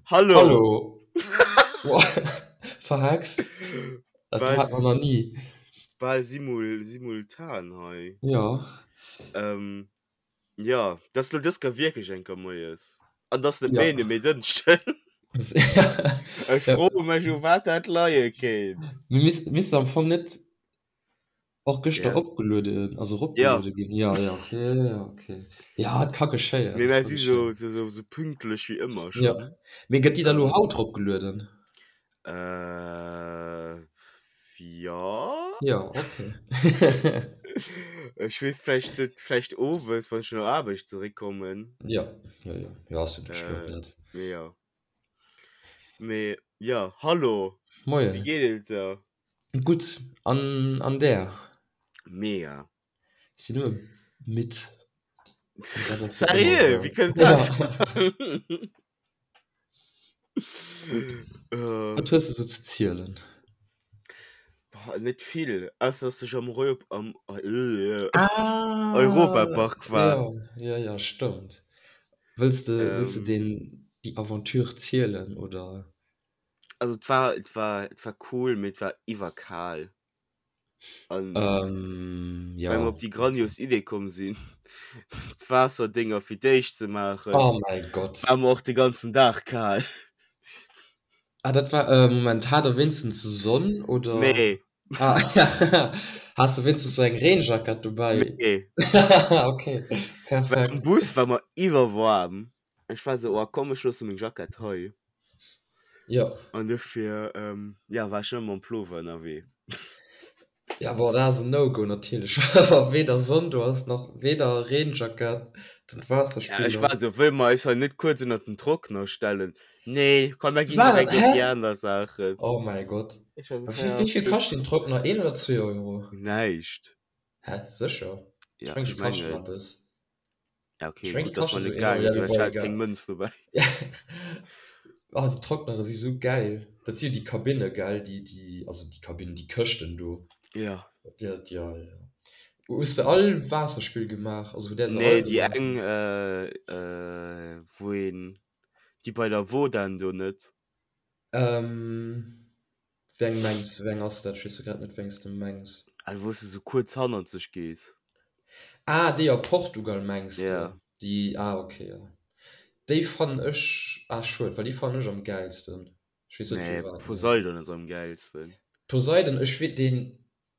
Hallo! Hallo! Verhext? Dat hat man nach nie. Bal simul, simultan hei. Ja. Ähm, ja, dat ass lo dës Kéier wierklech eng Kéier moies. An dat ass net Ja. méi, mee Dënschden. Ech froe mech, u wat dat leie kéint. Mir missten am Fong net Och gëschter Ja. opgelueden, also eropgeluede ginn. Ja, ja, okay, ja, okay. Ja, et ka geschéien. Mee et mär ka si sou, geschéien. sou, sou, sou pünktlech wéi ëmmer Ja. schonn. Mee gëtt déi da lo haut eropgelueden? Äh, ja. Ja, okay. Ech weess vläicht net, vläicht owes, wann ech no der Aarbecht zeréckkommen. Ja, ja, ja. Ja, ass jo net schlëmm, Äh, dat. mee ja. Mee ja, hallo. Wéi Moien. geet et der? Gutt, an, an där? Mega. Ech sinn nëmme midd. Dat ass jo ëmmer Sérieux? esou. Wéi kënnt Ja. dat? Wat hues de sou ze zielen? Boah, net vill, ausser dass ech am Reu am äh, Ah, Europapark war. ja, ja, ja, stëmmt. Wëlls de, wëlls de Ähm. deen, déi Aventure zielen, oder? Also et war, et war, et war cool, mee et war iwwerkal. An Ähm, well mer ja. op déi grandios Idee komm sinn, d'Waasserdénger fir d'éischt ze maachen, Oh mäi Gott. war mer och de ganzen Dag kal. Ah, dat war, äh, Moment, hat der wéinstens Sonn, oder? Nee. Ah, has de wéinstens sou eng Reenjackett dobäi? Nee. Okay, Well am perfekt. Bus war mer iwwerwaarm. Ech war sou, oh komm, ech loosse meng Jackett hei. Jo. An dofir, ähm, ja, war ech ëmmer mam Plover ënnerwee. Ja, bon, dat ass en No-Go natierlech, wa weder Sonn do ass, nach weder Reenjackett, dann Ja, ech Waasserspiller. war sou, wëlle mer eis hei net kuerz ënnert den Trockner stellen? Nee, komm, mer ginn War dat, direkt op hä? déi aner Saachen. Oh mäi Gott. Ech war sou, Wéi, ja, wéi vill okay. kascht den Trockner? Een oder zwee Euro? Näischt. Hä, sécher? Ech Ja, meng, ech déi kaschten mengen. eppes. Ja, okay, Ech meng, gutt, déi dass kaschte mer sou net een Euro. gaange Ja, sinn, mee well ech bon, hat egal. keng Mënz dobäi. Oh, déi Trocknere si sou gäil. Dat si jo déi Kabinne, gell? Déi, déi, also déi Kabinnen, déi Këschten do. Ja. Ja, ja, ja. Hues de all Waasserspill gemaach? Also hutt där se Nee, all déi gemaach? eng, äh, äh, wou een, déi bei der Wodan do net. Ähm, wéi eng mengs, wéi eng ass dat? Ech weess jo grad net, wéi eng s de mengs. Ah, wou s de sou kuerz hannerzeg gees. Ah, déi a Portugal mengs de? Ja. Déi, ah, ok, jo. Déi fannen ech, ah, schued, well déi fannen ech am gäilsten. Ech weess net Nee, firwat, mee. Poseidon ass am gäilsten. Poseidon, ech wee, deen,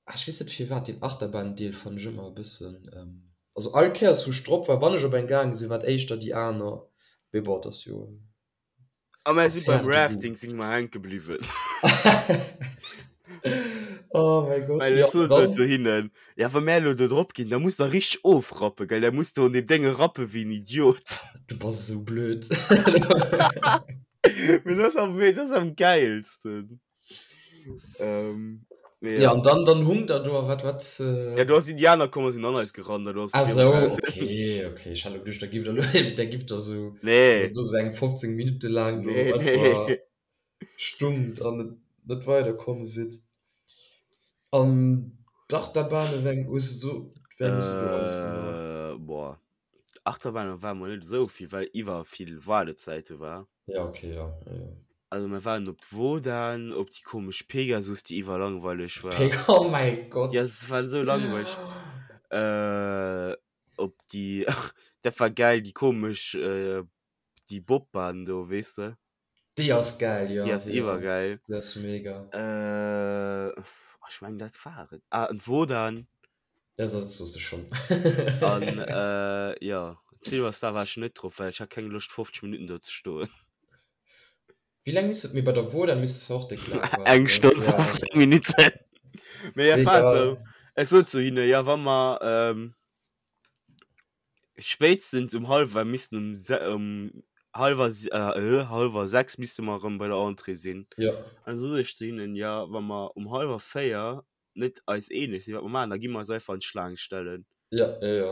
ah, ech weess net firwat, deen Achterbahn-Deel fannen ech ëmmer e bëssen, also all Kéiers wou ech drop war, wann ech op eng gaange sinn, war et éischter déi aner, mee bon, et ass jo. A mär si beim Affaire de goût. Rafting si mer hänke bliwwen. Oh mäi Gott, Well jo ech sot dann. zu hinnen, ja wa mär elo do drop ginn, da muss der richteg ofrappen, gell, da muss de un deem Dénge rappe wéi en Idiot. Du bass esou blöd. Mee dat ass am, dat ass am gäilsten. Ähm, mee Ja, ja. an dann, dann hung der do a wat, wat. Ja, do ass Indianer komm a sinn an eis gerannt, an do ass Ah et sou, virugaangen. okay, okay. Ech hat elo geduecht, der giff der elo, der giff der sou, Nee. do sou eng 15 Minutte laang do Nee, einfach nee. stungt an net, net weiderkomm sidd. An d'Achterbahne, wéi eng hues de do, wéi eng hues de do alles gemaach? Äh, boah. Achterbahne ware mer net esou vill, well iwwer vill Waardezäite war. Ja, okay, ja, ja, ja. Also mir waren op d'Wodan, op déi komesch Pegasus, déi iwwerlangweileg war. Peg oh mäi Gott. Ja, se waren esou langweileg. Äh, op déi, dat war gäil, déi komesch, äh, déi Bobbahn do, weess de? Déi ass gäil, jo. Déi ass jo, iwwergäil. Déi ass mega. Äh, ech mengen dat war et. Ah, an d'Wodan. Ja, dat soos de schonn. An, äh, jo, Silver Star war ech net drop, well ech hat keng Loscht 50 Minutten do ze stoen. Wéi laang misst et, mee bei der Wodan misst de och déck laang waarden, Eng ne? Stonn Ja. 15 Minutten. Mee et war Egal. esou, ech sot zu hinne, jo wa mer, ähm, spéitstens um hallwer missten um se um hallwer si äh, hallwer 6 misste mer erëm bei der Entrée sinn. Jo. An da sot ech zu hinnen, jo wa mer um hallwer 4 net eis eeneg sinn, wat mer maachen, da gi mer eis einfach an d'Schlaang stellen. Ja, ja, ja.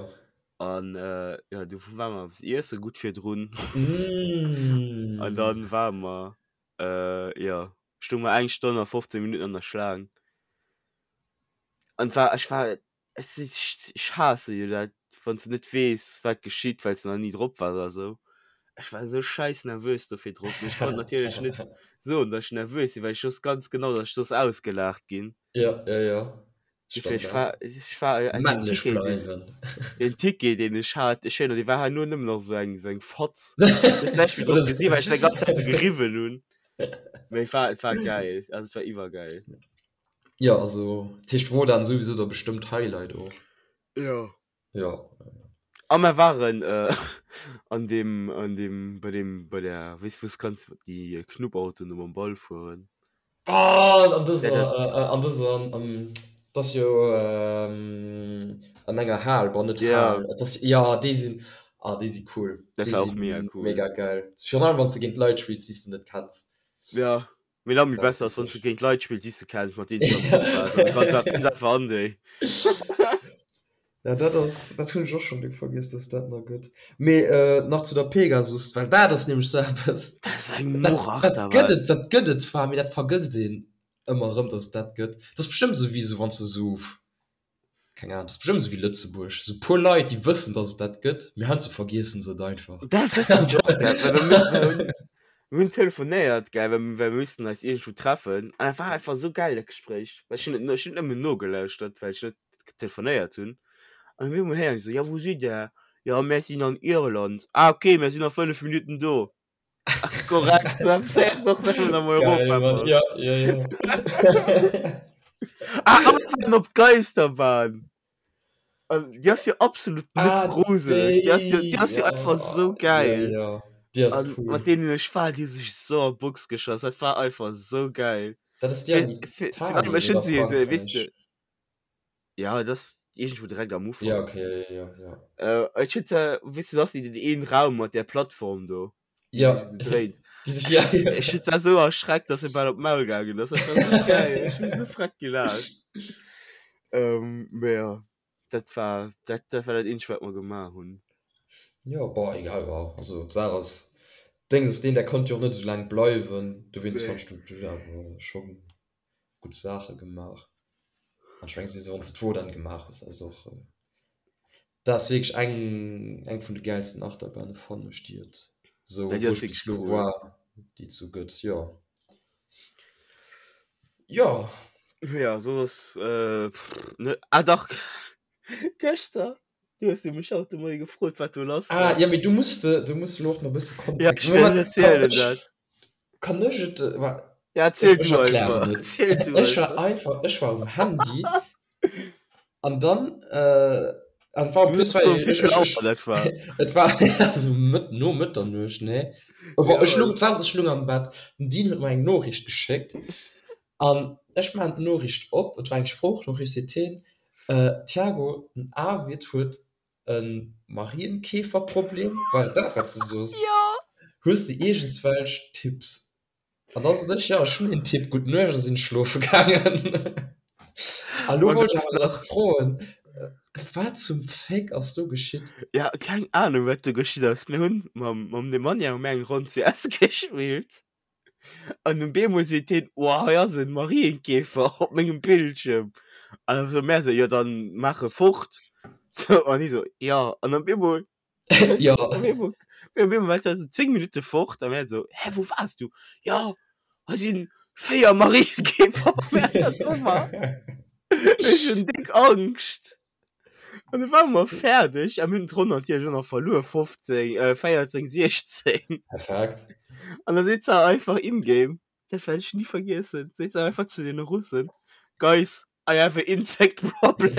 An äh, ja, du ware mer eppes iesse gutt virdrun. Mm. An dann ware mer, äh, ja, stounge mer eng Stonn a 15 Minutten an der Schlaang. An war, ech war, ech si, ech haasse jo dat, wann s de net weess, wat geschitt, well s de nach ni drop waars oder sou. Ech war esou scheiss nervös do virdrop, mee ech konnt natierlech net soen, dass ech nervös sinn, well ech wosst ganz genau, dass ech soss ausgelaacht ginn. Ja, ja, ja. Dofir, ech war, ech war, äh, den Männlech Ticket, den, bleiwen. den Ticket, deen ech hat, ech erinnere, dee war herno nëmmen nach esou eng, esou eng Fatz. Du hues näischt méi drop Oder gesinn, well ech dat ganz Zäit esou geriwwen hunn. Mee et war, et war geil, also et war iwwergeil. Ja, also, dat heescht, wor dann souwisou da bestëmmt Highlight och. Ja. Ja. A mer waren äh, an dem, an dem, bei dem, bei der, weess wou s kanns déi Knuppautoen do mam Ball fueren. Ah, an Ja, dëser, dat, äh, an dëser, an, dat ass jo ähm, an enger Hal, bon net ja, Hal, et ass, ja, déi sinn, ah, déi si cool, dat déi war si och mega cool. mega geil. Virun allem wann s de géint Leit spills, déi s de net kenns. Ja, mee nach méi Dat ass besser ass, wann s de witzeg. géint Leit spills, déi s de kenns, mat deenen s de am Bus waars, an du kanns einfach, einfach an déi. Ja, dat ass, dat hunn ech och schonn déck vergiess, dass dat nach gëtt. Mee nach zu der Pegasus, well dat ass nämlech sou eppes, Dat ass eng dat, dat Murachterbahn. gëtt et, dat gëtt et zwar, mee dat vergësst een ëmmer erëm, dass et dat gëtt. Dat ass bestëmmt esou wéi esou, wann s de esou, keng Ahnung, dat ass bestëmmt esou wéi Lëtzebuerg, esou puer Leit, déi wëssen, dass et dat gëtt, mee heiansdo vergiessen se et einfach. Dat fannen ech och geil, well mir müssen, mir hunn, mir hunn telefonéiert, gell, well well mir missten eis iergendwou treffen an dat war einfach esou geil, dat Gespréich, well ech hunn et, ech hunn nëmmen nogelauschtert, well ech net telefonéiert hunn an op eemol héieren ech esou, jo wou sidd der? Jo mär sinn an Irland. Ah ok, mär sinn a 5 Minutten do. Korrekt, da fäers de och nëmmen am Geil, Mann, Europapark. ja, ja, ja. Ah, a mir waren op d'Geisterbahn. An déi ass jo absolut net Ah, gruseleg, déi ass jo, déi, déi ass jo ja, einfach sou ja, geil. ja, déi ass An cool. mat deenen ech war, déi hu sech sou an d'Box geschoss, dat war einfach sou geil. Dat ass déi Fir, an fir, fir allem Italien ech hunn oder se jo sou, weess de, Frankräich? Ja, dat ass iergendwou direkt am Ja, Ufank. okay, ja, ja, ja. Äh, ech huet se, weess du, dass déi den een Raum mat där Plattform do, déi Ja, sech esou dréint. déi sech, Ech ja, huet, ja. ech huet se esou erschreckt, dass se bal op d'Maul gaangen ass. Dat war esou geil. Ech hu sou freck gelaacht. Ähm, mee ja, dat war, dat, dat war dat eenzegt, wat mer gemaach hunn. Ja, boah, egal, ja. Also, d'Saach ass, Déngs ass deen, der konnt jo och net esou laang bleiwen, dowéinst Nee. fand ech, du, du awer schonn gutt Saache gemaach. An ech mengen souwisou, wann s de d'Wodan gemaach hues, ass och, dat ass wierklech eng, eng vun de gäilsten Achterbahne fannen ech, déi et sou, Ja, déi wou ass ech bis wierklech elo cool. war, déi et sou gëtt, jo. Jo. Ja, soss, äh, ne, ah dach, gëschter, du hues jo mech haut de Moie gefrot, wat do lass Ah, war. ja, mee du muss de, du muss elo och nach e bësse Ja, Kontext. ech wëll Moment, kann erzielen ech, dat. kann ech et, wa, Ja, ech, erziel ech du erklären einfach, et. erziel du Ech war einfach. einfach, ech war um Handy an dann, äh, an war en Du plus hues war gefrot, ech, wéi vill ech, Auer ech, dat war. et war also Mëtt, no Mëtternuecht, nee. Bon, Ja, ech lung, d'Saach ass, ech lung am Bett, den Dean huet mer eng Noriicht geschéckt an ech maachen d'Noriicht op, et war eng Sproochnoriicht, seet hien, äh, Thiago, den Arvid huet e Marienkäferproblem, war et dat wat s de soos? Jo! Hues de iergendswelch Tipps? An da sot ech, jo ech hunn een Tipp, gutt Nuecht a sinn schlofe gaangen. A lo An wollt du ech hues awer nach nach. froen, wat zum Féck ass do geschitt? Ja, keng Ahnung wat do geschitt ass. Mir hunn mam mam Nemanja hu mir eng Ronn CS gespillt an um bemol seet hien, oh hei ass en Marienkäfer op mengem Bildschierm. An da soe mär sou, jo dann maach e fort. Sou an hie sou, jo an op eemol Jo. Op eemol op eemol war se 10 Minutte fort a mär sou, hä wou waars du? Jo hei sinn 4 Marienkäfer op menger Tastatur. Ech hunn déck Angscht. An du ware mer fäerdeg a mir hunn d'Ronn natierlech och nach verluer, 15, äh, 14, 16. Perfekt. An da seet se einfach in-game, dat wäert ech ni vergiessen, seet se einfach zu deene Russen, Guys, I have a insect problem.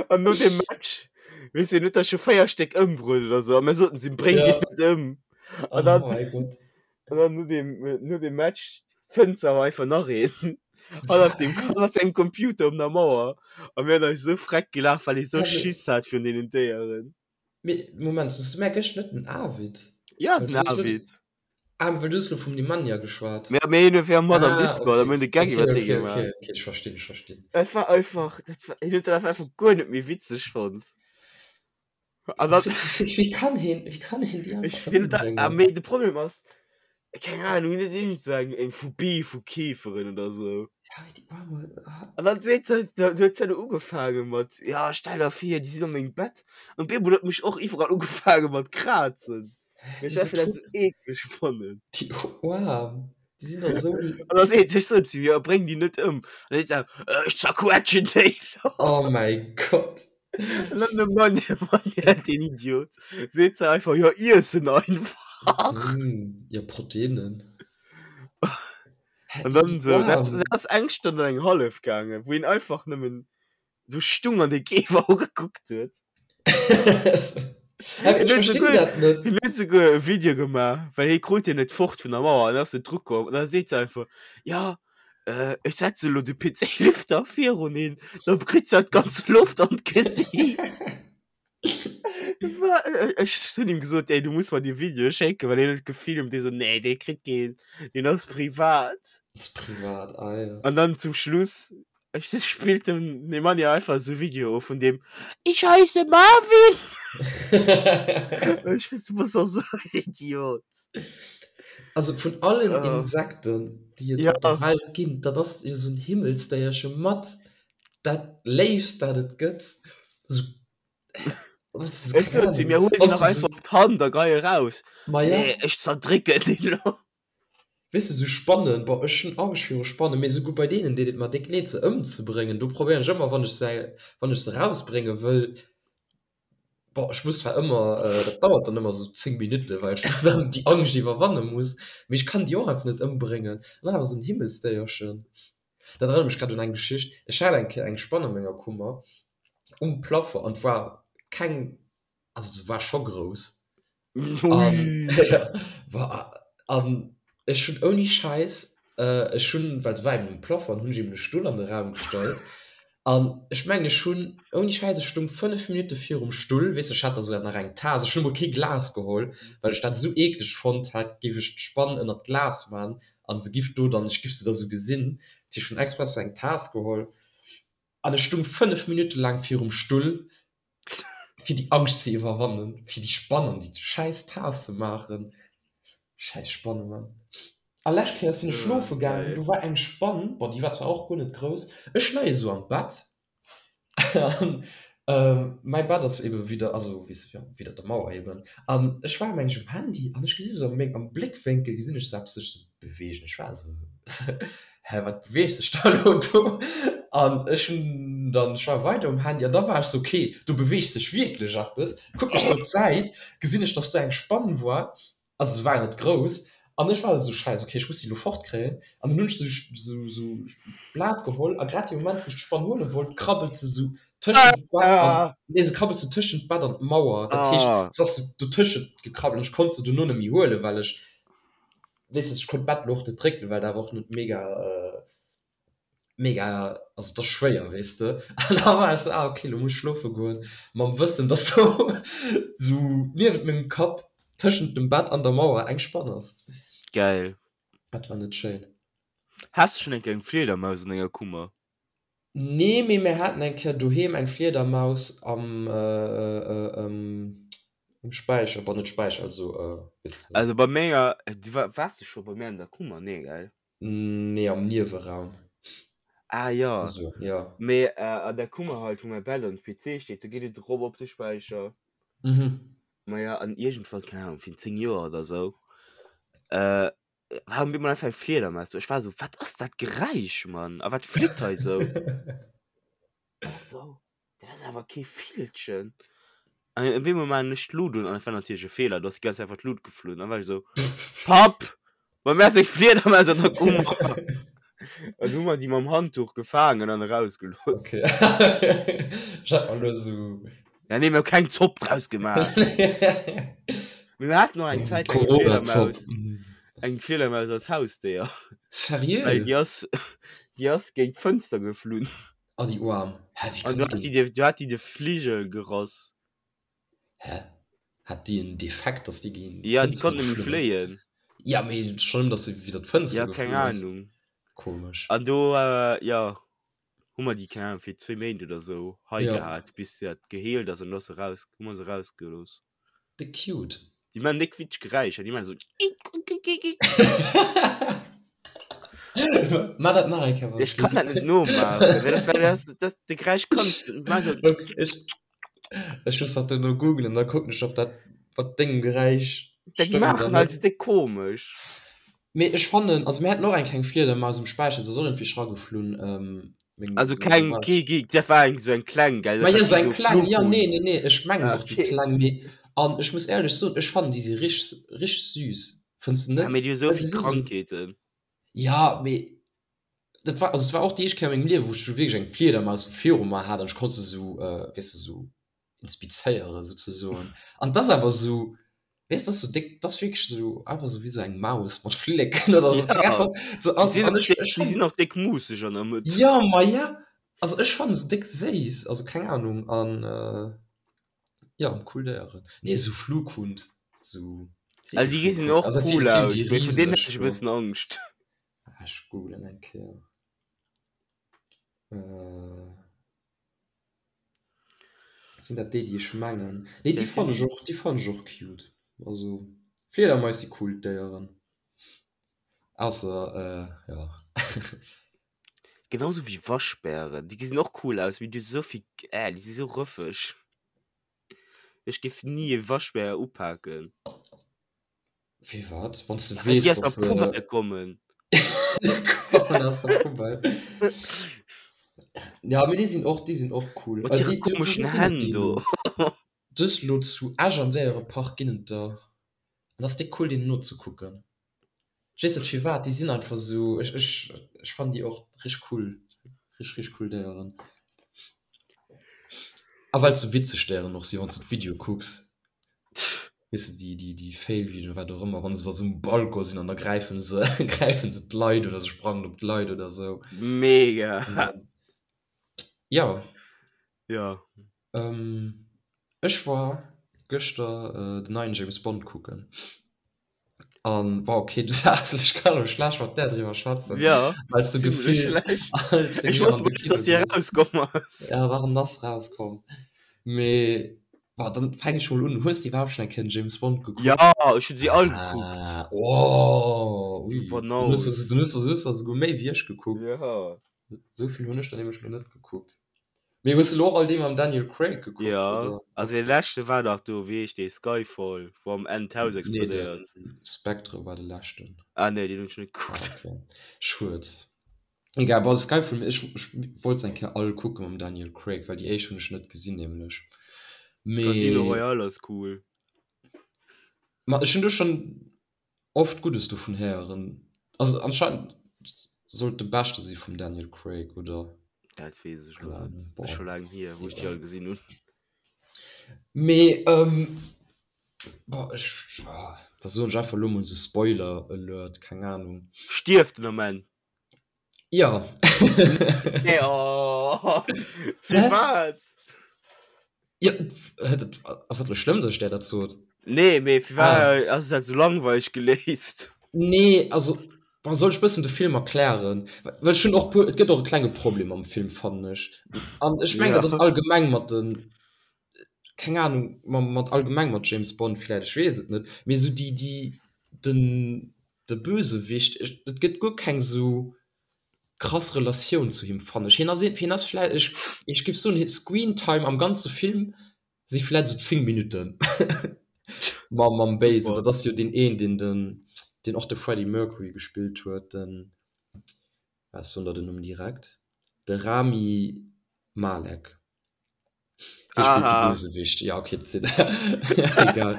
An no dem Match, weess de, huet der scho 4 Stéck ëmbruet oder sou, a mir soten si, bréng déi Ja. net ëm. An Oh dann, mäi Gott. an dann no dem, no dem Match fënnt se awer einfach nach een. Hannert dem, hannert sengem Computer op der Mauer. A mir hunn eis esou freck gelaacht, well hie sou Also, Schiss hat virun deenen Déieren. mee Moment, soss du mär gëscht net den Arvid? Ja, Well den du hues lo, Arvid. ah, well du hues lo vum Nemanja geschwat. Mir, mir hunn fir mat am Ah, Discord a okay. mir hunn de Gag Okay, iwwer dee okay, gemaach. okay, okay, ech verstinn, ech verstinn. Dat war einfach, dat war, hien huet dat einfach guer net méi witzeg fonnt. An dann, Wéi, wéi kann hien, wéi kann hien déi ech einfach hien huet dat, ah, ëmbréngen? mee de Problem ass, keng Ahnung, hien huet iergend sou eng, eng Phobie vu Käferen oder sou. Ja, mee déi Aarm, ah. An dann seet se, dann huet se ugefaange mat, ja stell der vir, déi sinn an mengem Bett. An op eemol huet mech och iwwerall ugefaange mat krazen. Well ech einfach dat sou eekleg fannen. Déi Aarm, déi sinn dach sou. An dann seet se, ech soen zu hir, bréng déi net ëm. An dann seet se, ech zerquetschen déi elo. Oh mäi Gott. An dann de Mann, de Mann, deen Idiot, seet se einfach, jo iess en einfach. Jo, Proteinen. An dann so, dat, dat ass eng Stonn an eng hallef gaangen, wou een einfach nëmmen so stung an de Käfer ugekuckt huet. Ech verstinn dat net. Hien huet souguer e Video gemaach, well hie krut hien net fort vun der Mauer an ass net drukomm. An da seet se einfach, ja, äh, ech setze lo de PC-Lüfter virun hien, da kritt se d'ganz Loft an d'Gesiit. Ech hunn him gesot, ey, du muss mer dee Video schécken, well hien huet gefilmt. Dee so, nee, dee kritt keen, deen ass privat. Ass privat, ah ja. An dann zum Schluss, ech spillt dem Nemanja einfach esou Video of vun deem, Ich heiße Marvin! Ech weess, du bass och esou en Idiot. Also vun allen Insekten, déi et op der Welt ginn, dat ass jo esou en Himmelsdéierche mat dat Léifst, dat et gëtt. Esou Ech sot zu mir, huel déi nach einfach op d'Hand a gei eraus. Ma ja. Nee, ech zerdrécken déi elo. Weess de, sou Spannen, boah, ech hunn Angscht viru Spannen, mee souguer bei deenen deet et mer déck leed se ëmzebréngen. Do probéieren ech ëmmer, wann ech se, wann ech se erausbrénge wëll, boah, ech muss zwar ëmmer, dat dauert dann ëmmer sou 10 Minutten, well ech dann déi Angscht iwwerwanne muss, mee ech kann déi och einfach net ëmbréngen. An dann awer sou en Himmelsdéierchen. Dat erënnert mech grad un eng Geschicht. Ech hat eng Kéier eng Spann a menger Kummer um Plafond an et war keng, also se war scho grouss. An ech hunn ouni Schäiss, ech hunn, well se war eben um Plafond, hunn ech eben e Stull an de Raum gestallt an ech mengen ech hunn ouni Schäiss, ech stoung 5 Minutte virum Stull, weess de, ech hat da souguer nach eng Taass, ech hunn emol kee Glas geholl, well ech dat esou eekleg fonnt hat, géif ech d'Spann ënnert d'Glas man an se giff do dann, ech giff se da sou gesinn, dat heescht ech hunn express sou eng Taass geholl an ech stung 5 Minutte laang virum Stull fir déi Angscht ze iwwerwannen, fir déi Spann an déi schäiss Taass ze maachen. Schäiss Spanne Mann. A lescht Kéier sinn ech schlofe gaangen, do war eng Spann, bon déi war zwar och guer net grouss, ech leie sou am Bett An mäi Bett ass ebe widder, also weess jo, widder der Mauer eben. An ech war meng ech um Handy an ech gesi sou a meng, am Bléckwénkel gesinn ech sou eppes sech sou beweegen. Ech war esou, hä, wat beweegt sech da elo do? An ech hunn dann, ech war weider um Handy an da war ech sou, okay, do beweegt sech wierklech eppes. Kucken ech sou op d'Säit, gesinn ech, dass do eng Spann war. Also se war net grouss an ech war esou, scheiss, okay, ech muss déi elo fortkréien. An dann hunn ech sou sou d'Blat geholl a grad dee Moment, wou ech d'Spann huele wollt, krabbelt se sou tëschent d'Bett an, nee, se krabbelt sou tëschent d'Bett an d'Mauer. Dat heescht, se ass sou dotëschent gekrabbelt an ech konnt se dono net méi huelen, well ech, weess de, ech konnt d'Bett elo och net drécken, well dat awer och net mega. Mega, also et ass schwéier weess de. An da war ech sou, ah ok, lo muss ech schlofe goen, mam Wëssen, dass do sou niewent mengem Kapp tëschent dem Bett an der Mauer eng Spann ass. Geil. Dat war net schéin. Has de schonn eng Kéier eng Fliedermaus an denger Kummer? Nee, mee mir haten eng Kéier doheem eng Fliedermaus am um Späicher, bon net Späicher, also weess de. Also bei menger, du waars du scho bei mär an der Kummer? Nee, gell? Nee, am Nieweraum. Ah ja. Also, ja. Mee äh, an der Kummer halt, wou mäi Bett an PC steet, do geet et erop op de Späicher. Mhm. Maja, an iergendwann, keng Ahnung, virun 10 Joer oder sou, äh, war op eemol einfach eng Fliedermaus do. Ech war sou, wat ass dat Geräisch, Mann? A wat flitt hei sou? Also, dat ass awer kee Villchen. An op eemol maachen ech d'Lut un, an et war natierlech e Feeler, do ass déi ganz Zäit einfach d'Lut geflunn. An da war ech esou, Papp, bei mär ass eng Fliedermaus an der Kummer. An hu mer déi mam Handtuch gefaangen an erausgelooss. Okay. Ech hat mer elo esou. Ja, nee, mir hu keng Zopp draus gemaach. Mee mir haten och eng Zäit laang eng Corona-Zopp. Fliedermaus, eng Fliedermaus als Hausdéier. Seriö? Well déi ass, déi ass géint d'Fënster geflunn. Oh déi Oarm. Hä, wéi An kann du déi hat denn? déi, du hat déi de Fligel gerass. Hä? Hat déi en Defekt, dass déi géint Ja, déi d'Fënster konnt net méi geflunn ass? fléien. Ja, mee schonn nëmmen, dass se widder d'Fënster Ja, keng geflunn ass. Ahnung. Komesch. An do, jo, hu mer déi, keng Ahnung, fir zwéi Méint oder sou hei Ja. gehat, bis dat geheelt ass an du ass se raus, hu mer se rausgelooss. Déck cute. Déi man déck witzeg Geräischer, déi man sou. Maach dat nach eng Kéier. Ech kann dat net nomaachen. Dat, dat, dat, de Geräisch kanns du net. Maach esou. Ech, ech muss dat duerno googlen, da kucken ech, ob dat mat dengem Geräisch Dat stëmmt oder maachen halt net. esou déck komesch. Mee ech fannen, also mir haten och eng kleng Fliedermaus um Späicher, se ass och iergendwéi rageflunn. Ähm, meng, Also meng keng, Wal. kee Geek, dat war eng esou eng kleng, gell? Ma Dat jo, war sou kee eng sou kleng, jo, nee, Flughund. nee, nee, ech mengen Ah, och déi okay. kleng, mee an ech muss éierlech soen, ech fannen déi si richteg, richteg süß. Fënns de Ja, net? mee déi hu sou Well déi vill si sou, Krankheeten. ja, mee dat war, also et war och déi éischt Kéier a mengem Liewen, wou ech sou wierklech eng Fliedermaus viru mer hat an ech konnt se sou, weess de, sou inspizéieren souzesoen. An 't ass awer sou, weess, 't ass sou déck, 't ass wierklech sou einfach sou wéi sou eng Maus mat Flilleken oder sou. Ja, So, déi also, sinn an och ech, déck, ech déi fannen, sinn och déck muusseg an der Mëtt. ja, ma ja, also ech fannen se déck séiss, also keng Ahnung an. Ja, cool Déieren. Nee, esou Flughund, esou Also déi gesinn och Also, cool si aus, déi mee vun deenen riseg hätt ech e do. bëssen Angscht. Ah, ech googlen eng Kéier. Äh, sinn dat déi, déi ech mengen? Nee, déi Dat sinn fannen ech déi. och, déi fannen ech och cute. Also, Fliedermais si cool Déieren. Ausser, äh, ja. Genauso wéi Waschbären, déi gesinn och cool aus, mee déi hu sou vill, äh, déi si sou rëffeg. Ech géif ni e Waschbär upaken. Firwat? Wann s de Ja, well déi weess, aus der dass se Poubelle kommen. kommen aus der Poubelle. Ja, mee déi sinn och, déi sinn och cool. Mat hire komeschen Hänn do. Dës lo zu Esch am Déierepark ginn et der, an ass déck cool deenen nozekucken. Ech weess net firwat, déi sinn einfach esou, ech ech ech fannen déi och richteg cool, richteg richteg cool Déieren. A well et sou witzeg Déieren och sinn, wann s de d'Videoe kucks, weess de déi déi déi Fail-Videoen, wat och ëmmer, wann se da sou um Balcon sinn an da gräifen se gräifen se d'Leit oder se sprangen op d'Leit oder sou. Mega! An dann, jo. Jo. Ech war gëschter den neien James Bond kucken. An war okay, du saas ech kann elo schlecht mat där driwwer schwätzen. Ja, well s du zimmlech gefillt schlecht. als Ech mir wosst an de net, Kino dass déi gees. erauskomm ass. Ja, warum ass rauskomm? Mee war dann fäng ech mol un. Hues de iwwerhaapt schonn eng Kéier den James Bond gekuckt? Ja, ech hunn si all gekuckt. Ah, oh, Du ui. Dann hues Banaus. du, dann hues du, hues du esouguer méi wéi ech gekuckt. Ja. Esou vill hunn ech der nämlech lo net gekuckt. Mee hues de lo och all déi mam Daniel Craig gekuckt, Ja, oder? also dee leschte war dach do, wéi heescht dee, Skyfall, wou am Enn d'Haus Nee, explodéiert. de Spectre war de leschten. Ah nee, deen hunn ech net Ah, gekuckt. okay. Schued. Egal, bon, Skyfall, ech, ech wollt se eng Kéier all kucke mam Daniel Craig, well déi éischt hunn ech net gesinn nämlech. Casino Mee, Royale ass cool. ma ech hunn do schonn Oft Guddes dovun héieren. Also anscheinend soll et de beschte si vum Daniel Craig, oder? Dat weess ech Keine lo net. Ahnung. Ass scho Boah, laang hier, wou ech déi egal. all gesinn hunn. Mee ähm, boah, ech, ah, da soen ech einfach lo mol sou Spoiler Alert, keng Ahnung. Stierft en am Enn? Ja. Nee, oh, Hä? firwat? Ja, dat, ass dat lo schlëmm, dass ech där dat sot? Nee, mee firwat Ah. ass dat sou langweileg geléist? Nee, also, boah, soll ech bëssen de Film erklären? Well ech hunn och puer, et gëtt och e klenge Problem am Film, fannen ech. An ech mengen, Ja. dat ass allgemeng mat den, keng Ahnung, ma mat allgemeng mat James Bond vläicht, ech weess et net, mee sou déi, déi, den, de Bösewicht, et gëtt guer keng sou krass Relatioun zu him fannen ech. Hien ass, hien ass vläicht, ech, ech géif soen, hie Screentime am ganze Film si vläicht sou 10 Minutten mam, mam Béisen. Super. Dat ass jo deen een, deen den, deen och de Freddie Mercury gespillt huet, den, ah, ech soen der den Numm direkt, de Rami Malek. Hie spillt de Aha. Bösewicht. Ja, okay, dat egal.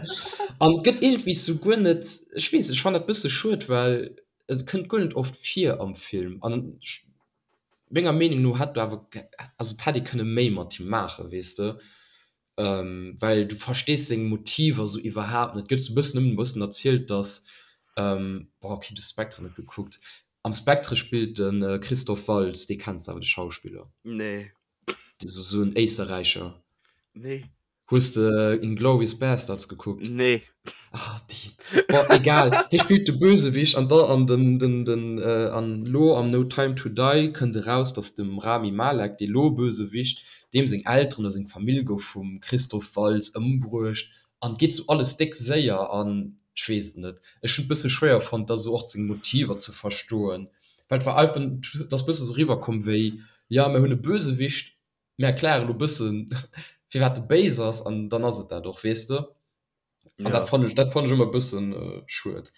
An et gëtt iergendwéi sou guer net, ech weess, ech fannen dat bësse schued, well et kënnt guer net oft vir am Film. An ech, menger Meenung no hätt do awer, also et hätt ee kënne méi mat him maachen, weess de, well du verstees seng Motiver sou iwwerhaapt net. Et gëtt sou bëssen nëmmen e bëssen erzielt, dass, boah, okay, du hues Spectre net gekuckt. Am Spectre spillt de Christoph Waltz, dee kenns de awer, de Schauspiller. Nee. So, so en Éisterräicher. Nee. Hues de Inglourious Basterds gekuckt? Nee. Ah, déi. Bon, egal. Hie spillt de Bösewicht an da an den, den, den, äh, an lo am No Time to Die kënnt eraus, dass dem Rami Malek, dee lo Bösewicht, deem seng Elteren oder seng Famill gouf vum Christoph Waltz ëmbruecht an et geet sou alles déck séier an ech weess et net. Ech hunn et bësse schwéier fonnt, da sou och seng Motiver ze verstoen. Well et war einfach, et ass bësse sou riwwerkomm wéi, jo mir hunn e Bösewicht, mir erklären elo bëssen firwat e béis ass an dann ass et dat och, weess de. An dat fannt ech, dat fannt ech ëmmer e bëssen schued.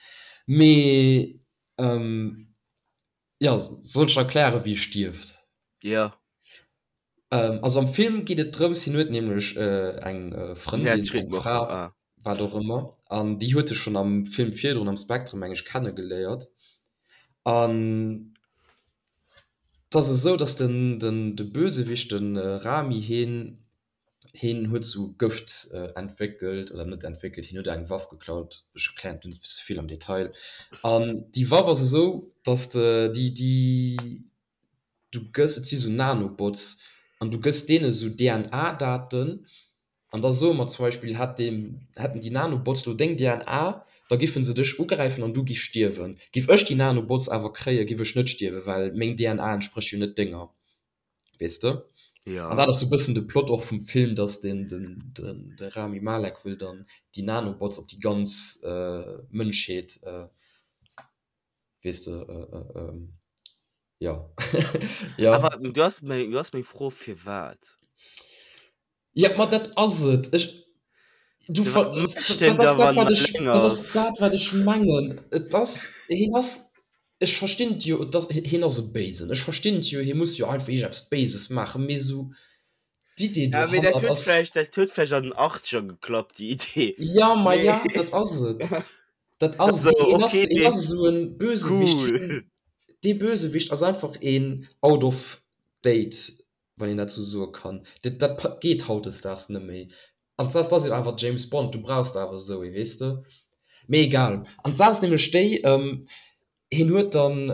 Mee jo, soll ech erklären wéi e stierft? Jo. Also am Film geet et drëms, hien huet nämlech eng Frëndin, eng Fra, wat och ëmmer, an déi huet e schonn am Film virdrun am Spectre meng ech kennegeléiert. An et ass esou, datt den, den, de Bösewicht, de Rami, hien, hien huet esou Gëft entwéckelt, oder net entwéckelt, hien huet eng Waff geklaut, ech erklären et net ze vill am Detail. An déi Waff ass esou, datt déi, déi, du gëss, et si sou Nanobots an du gëss deene sou DNA-Daten an da soe mer zum Beispill, hätt deen, hätten déi Nanobots lo deng DNA, da giffen se dech ugräifen an du giff stierwen. Giff ech déi Nanobots awer kréien, giff ech net stierwen, well meng DNA entsprécht jo net denger, weess de? Ja. An dat ass sou bëssen de Plot och vum Film, dass den, den, den, de Rami Malek wëll dann déi Nanobots op déi ganz Mënschheet weess de, jo. Jo. Awer du has meng, du has meng Fro, firwat? Ja, ma dat ass et. Ech, du ver, Firwat mécht en dat da ass dat, wann wat en ech, eleng dat ass ass? dat, wat ech mengen. Et ass, hien ass, ech verstinn et jo, et ass, hien ass e Béisen. Ech verstinn et jo, hie muss jo einfach iergendeppes Béises maachen, mee esou d'Idee Ja, mee dat dohannert huet ass. vläicht, dat huet vläicht an den Achtzeger geklappt, déi Idee. Ja, ma Mee ja, dat ass et. Dat ass also, et. Hien ass, okay, hien ass esou e Bösewicht. cool. Hien, dee Bösewicht ass einfach een out of date, wann een dat esou soe kann. Dat, dat geet hautdesdaags net méi. An d'Saach ass jo awer James Bond, du brauchs awer esou ee, weess de. Mee egal. An d'Saach ass nämlech déi, hien huet dann,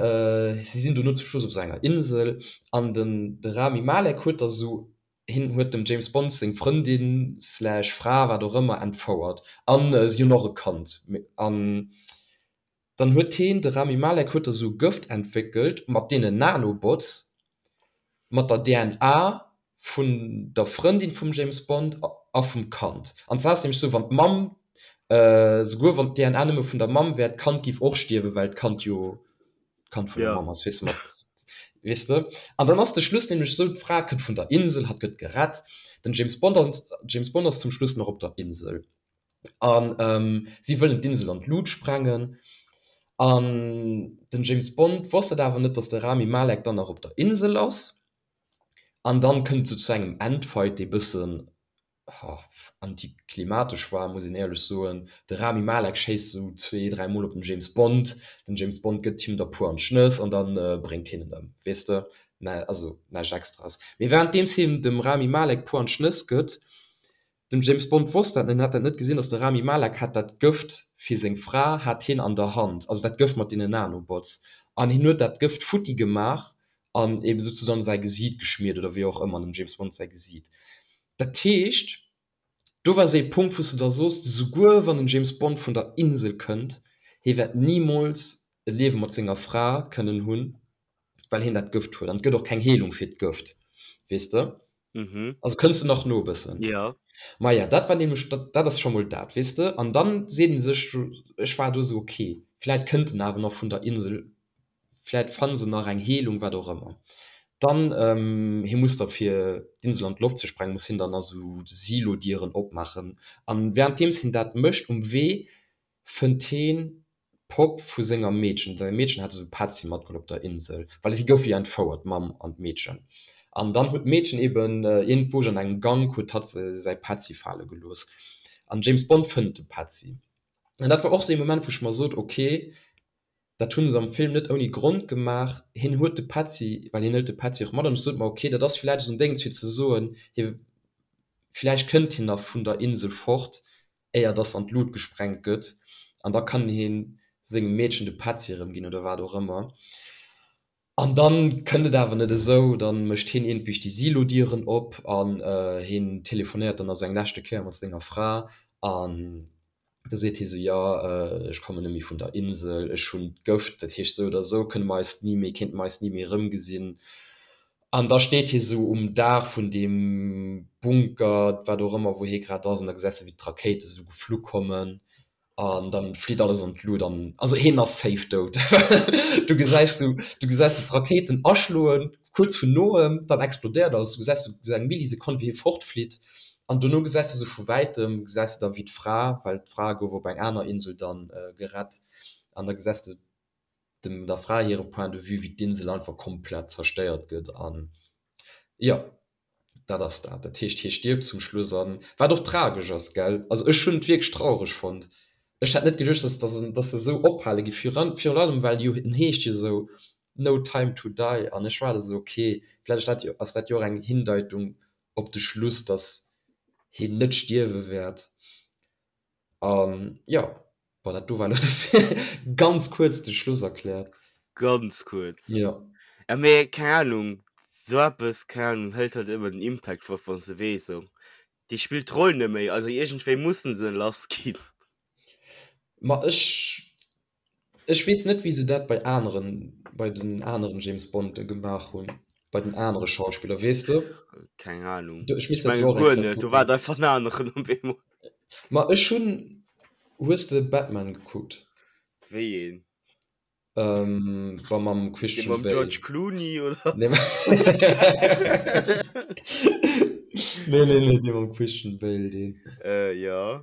si sinn dono zum Schluss op esou enger Insel an den, de Rami Malek huet da esou, hien huet dem James Bond seng Frëndin slash Fra, wat och ëmmer, entfouert an si hunn och e Kand. An dann huet hien, de Rami Malek huet da sou Gëft entwéckelt mat deenen Nanobots, mat der DNA vun der Frëndin vum James Bond a vum Kand. An zwar ass et nämlech sou, wann d'Mamm, souguer wann d'DNA nëmme vun der Mamm wär, d'Kand giff och stierwen, well d'Kand jo d'Kand vun der Mamm ass, weess de, mat, weess de. An dann ass de Schluss nämlech sou, d'Fra kënnt vun der Insel, hatt gëtt gerett, den James Bond, James Bond ass zum Schluss nach op der Insel. An si wëllen d'Insel an d'Lut sprengen. An den James Bond wosst et awer net, datt de Rami Malek dann nach op der Insel ass. An dann kënnt et sou zu engem Endfight, dee bëssen antiklimatesch war, muss een éierlech soen. De Rami Malek schéisst sou zwee, dräi Mol op den James Bond. Den James Bond gëtt him der puer an d'Schnëss an da bréngt hien en ëm, weess de. Also näischt Extraes. Mee wärenddeems hien dem Rami Malek puer an d'Schnëss gëtt, Den James Bond wosst dat net, en hat dat net gesinn, dass de Rami Malek hat dat Gëft fir seng Fra hat hien an der Hand, also dat Gëft mat deenen Nanobots, an hien huet dat Gëft futti gemaach an eben souzesoen säi Gesiit geschmiert oder wéi och ëmmer, dem James Bond säi Gesiit. Dat heescht, do war esou ee Punkt, wou s de da soos, souguer wann den James Bond vun der Insel kënnt, hie wäert nimools e Liewe mat senger Fra kënnen hunn, well hien dat Gëft huet, an et gëtt och keng Heelung fir d'Gëft, weess de. Mhm. Also kënns de nach no e bëssen? Ja. Maja, dat war nämlech, dat, dat ass scho mol dat, weess de. An dann seet ee sech, ech war do esou, okay, vläit kënnt en awer nach vun der Insel, vläit fanne se nach eng Heelung, wat och ëmmer. Dann, hie muss da fir d'Insel an d'Loft ze sprengen, muss hien dann nach esou Silodieren opmaachen. An wärenddeems hien dat mécht, um Wee fënnt heen d'Popp vu senger Meedchen, säi Meedchen hat esou Petzi matgeholl op der Insel, well si goufe jo entfouert, d'Mamm an d'Meedchen. An dann huet d'Meedchen eben iergendwou an engem Gank huet hatt säi Petzi fale gelooss. An James Bond fënnt de Petzi. An dat war och esou ee Moment, wou ech mer sot, ok, dat hu se am Film net ouni Grond gemaach, hien huet de Petzi, well hien hëlt de Petzi och mat. An ech sot mer, ok, dat ass villäicht esou en Déngens fir ze soen, hie, villäicht kënnt hien nach vun der Insel fort, éier dass an d'Lut gesprengt gëtt, an da kann hien sengem Meedchen de Petzi erëm ginn oder wat och ëmmer. An dann kënnt et awer net esou, dann mécht hien iergendwéi déi Silodieren op an hien telefonéiert dann also eng leschte Kéier mat senger Fra an da seet hie sou, jo ech kommen net méi vun der Insel, ech hunn d'Gëft, dat heescht sou oder sou kënne mer eis ni méi, kéinte mer eis ni méi erëmgesinn. An da steet hie sou um Daach vun deem Bunker, wat och ëmmer, wou hie grad ass, an da gesäis de wéi d'Rakéite sou geflu kommen. An dann flitt alles an d'Lut an also heen ass safe dout. Du gesäis du du gesäis du d'Rakéiten aschloen kuerz vun noem, dann explodéiert alles, du gesäis du eng Millisekonn wéi hie fortflitt an dono gesäis du sou vu wäitem gesäis du da wéi d'Fra, well d'Fra gouf op eng aner Insel dann gerett an da gesäis du dem der Fra hire Point de vue wéi d'Insel einfach komplett zerstéiert gëtt an jo. Dat ass dat. Dat heescht, hie stierft zum Schluss an, wat och tragesch ass, gell? Also ech hunn et wierklech traureg fonnt. Ech hätt net geduecht, dass, dass en, dass se esou ophale gi, virun, virun allem well jo, en heescht jo esou No Time to Die an ech war da esou, okay, vläicht ass dat jo, ass dat jo och eng Hindeitung op de Schluss, dass hien net stierwe wäert. An jo, bon, dat do war elo de ganz kuerz de Schluss erkläert. Ganz kuerz. Jo. Ja, mee keng Ahnung, sou eppes, keng Ahnung, hëlt halt ëmmer den Impact fort, wann s de weess, sou, dee spillt d'Roll net méi, also iergendwéi mussen se en lass ginn. Ma ech Ech weess net wéi se dat bei aneren, bei den aneren James Bonde gemaach hunn, bei den anere Schauspiller, weess de? Keng Ahnung. Du, ech misst Ech dat menge do och eng guer Kéier net, do war kucken. et einfach en aneren op eemol. Ma ech hunn, hues de Batman gekuckt? Wéi een? Ähm, wa mam Dee Christian mam Bale. George Clooney oder? Nee, nee, nee, nee, dee mam Christian Bale, deen. Äh, jo.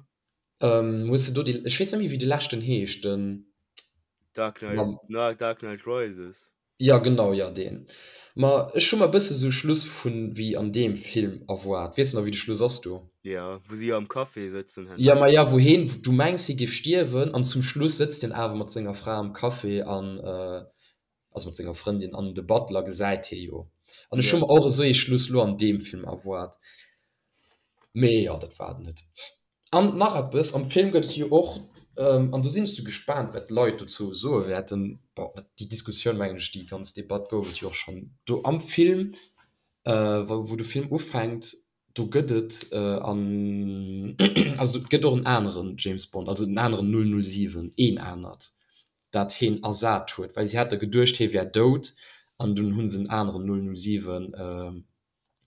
Ähm, hues de do déi, ech weess net méi wéi de leschten heescht, den Dark Knight, mam, na, Dark Knight Rises. ja genau, ja deen. Ma ech hu mer e bësse sou Schluss vun wéi an deem Film erwaart. Weess de nach wéi de Schluss ass do? Ja, wou si am Café sëtzen Ja, herno. ma ja, wou heen, du mengs hie géif stierwen an zum Schluss sëtzt hien awer mat senger Fra am Café an, also mat senger Frëndin an de Butler gesäit hie jo. An ech hu Ja. mer och esou ee Schluss lo an deem Film erwaart. Mee jo, dat war et net. An nach eppes, am Film gëtt et jo och, an do sinn ech sou gespaant, wat d'Leit dozou soe wäerten, bon, déi Diskussioun, mengen ech, déi ganz Debatt gouf et jo och schonn do am Film, wou de Film ufänkt, do gëtt et an, also et gëtt och en aneren James Bond, also en aneren 007, een anert, dat heen ersat huet, well si hate geduecht, hie wär dout, an dunn hu se en aneren 007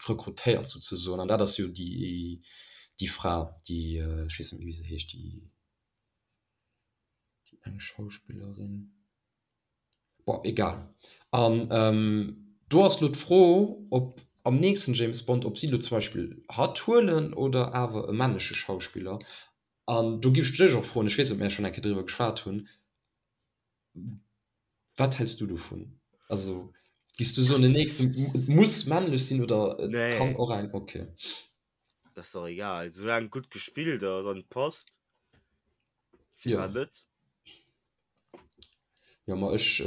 rekrutéiert souzesoen, an dat ass jo déi déi Fra, déi, ech weess net méi wéi se heescht, déi déi eng Schauspillerin, bon egal. An do ass elo d'Fro, ob am nächsten James Bond, ob si elo zum Beispill hatt huelen oder awer e männleche Schauspiller. An do giff ech dech och froen, ech weess net, ob mir schonn eng Kéier driwwer geschwat hunn, Wat häls du dovun? Also gis du soen den nächsten et muss männlech sinn oder et Nee. kann och eng okay. Das ist doch egal, solange gutt gespillt ass an et passt. Ja. Firwat net? Jo ma ech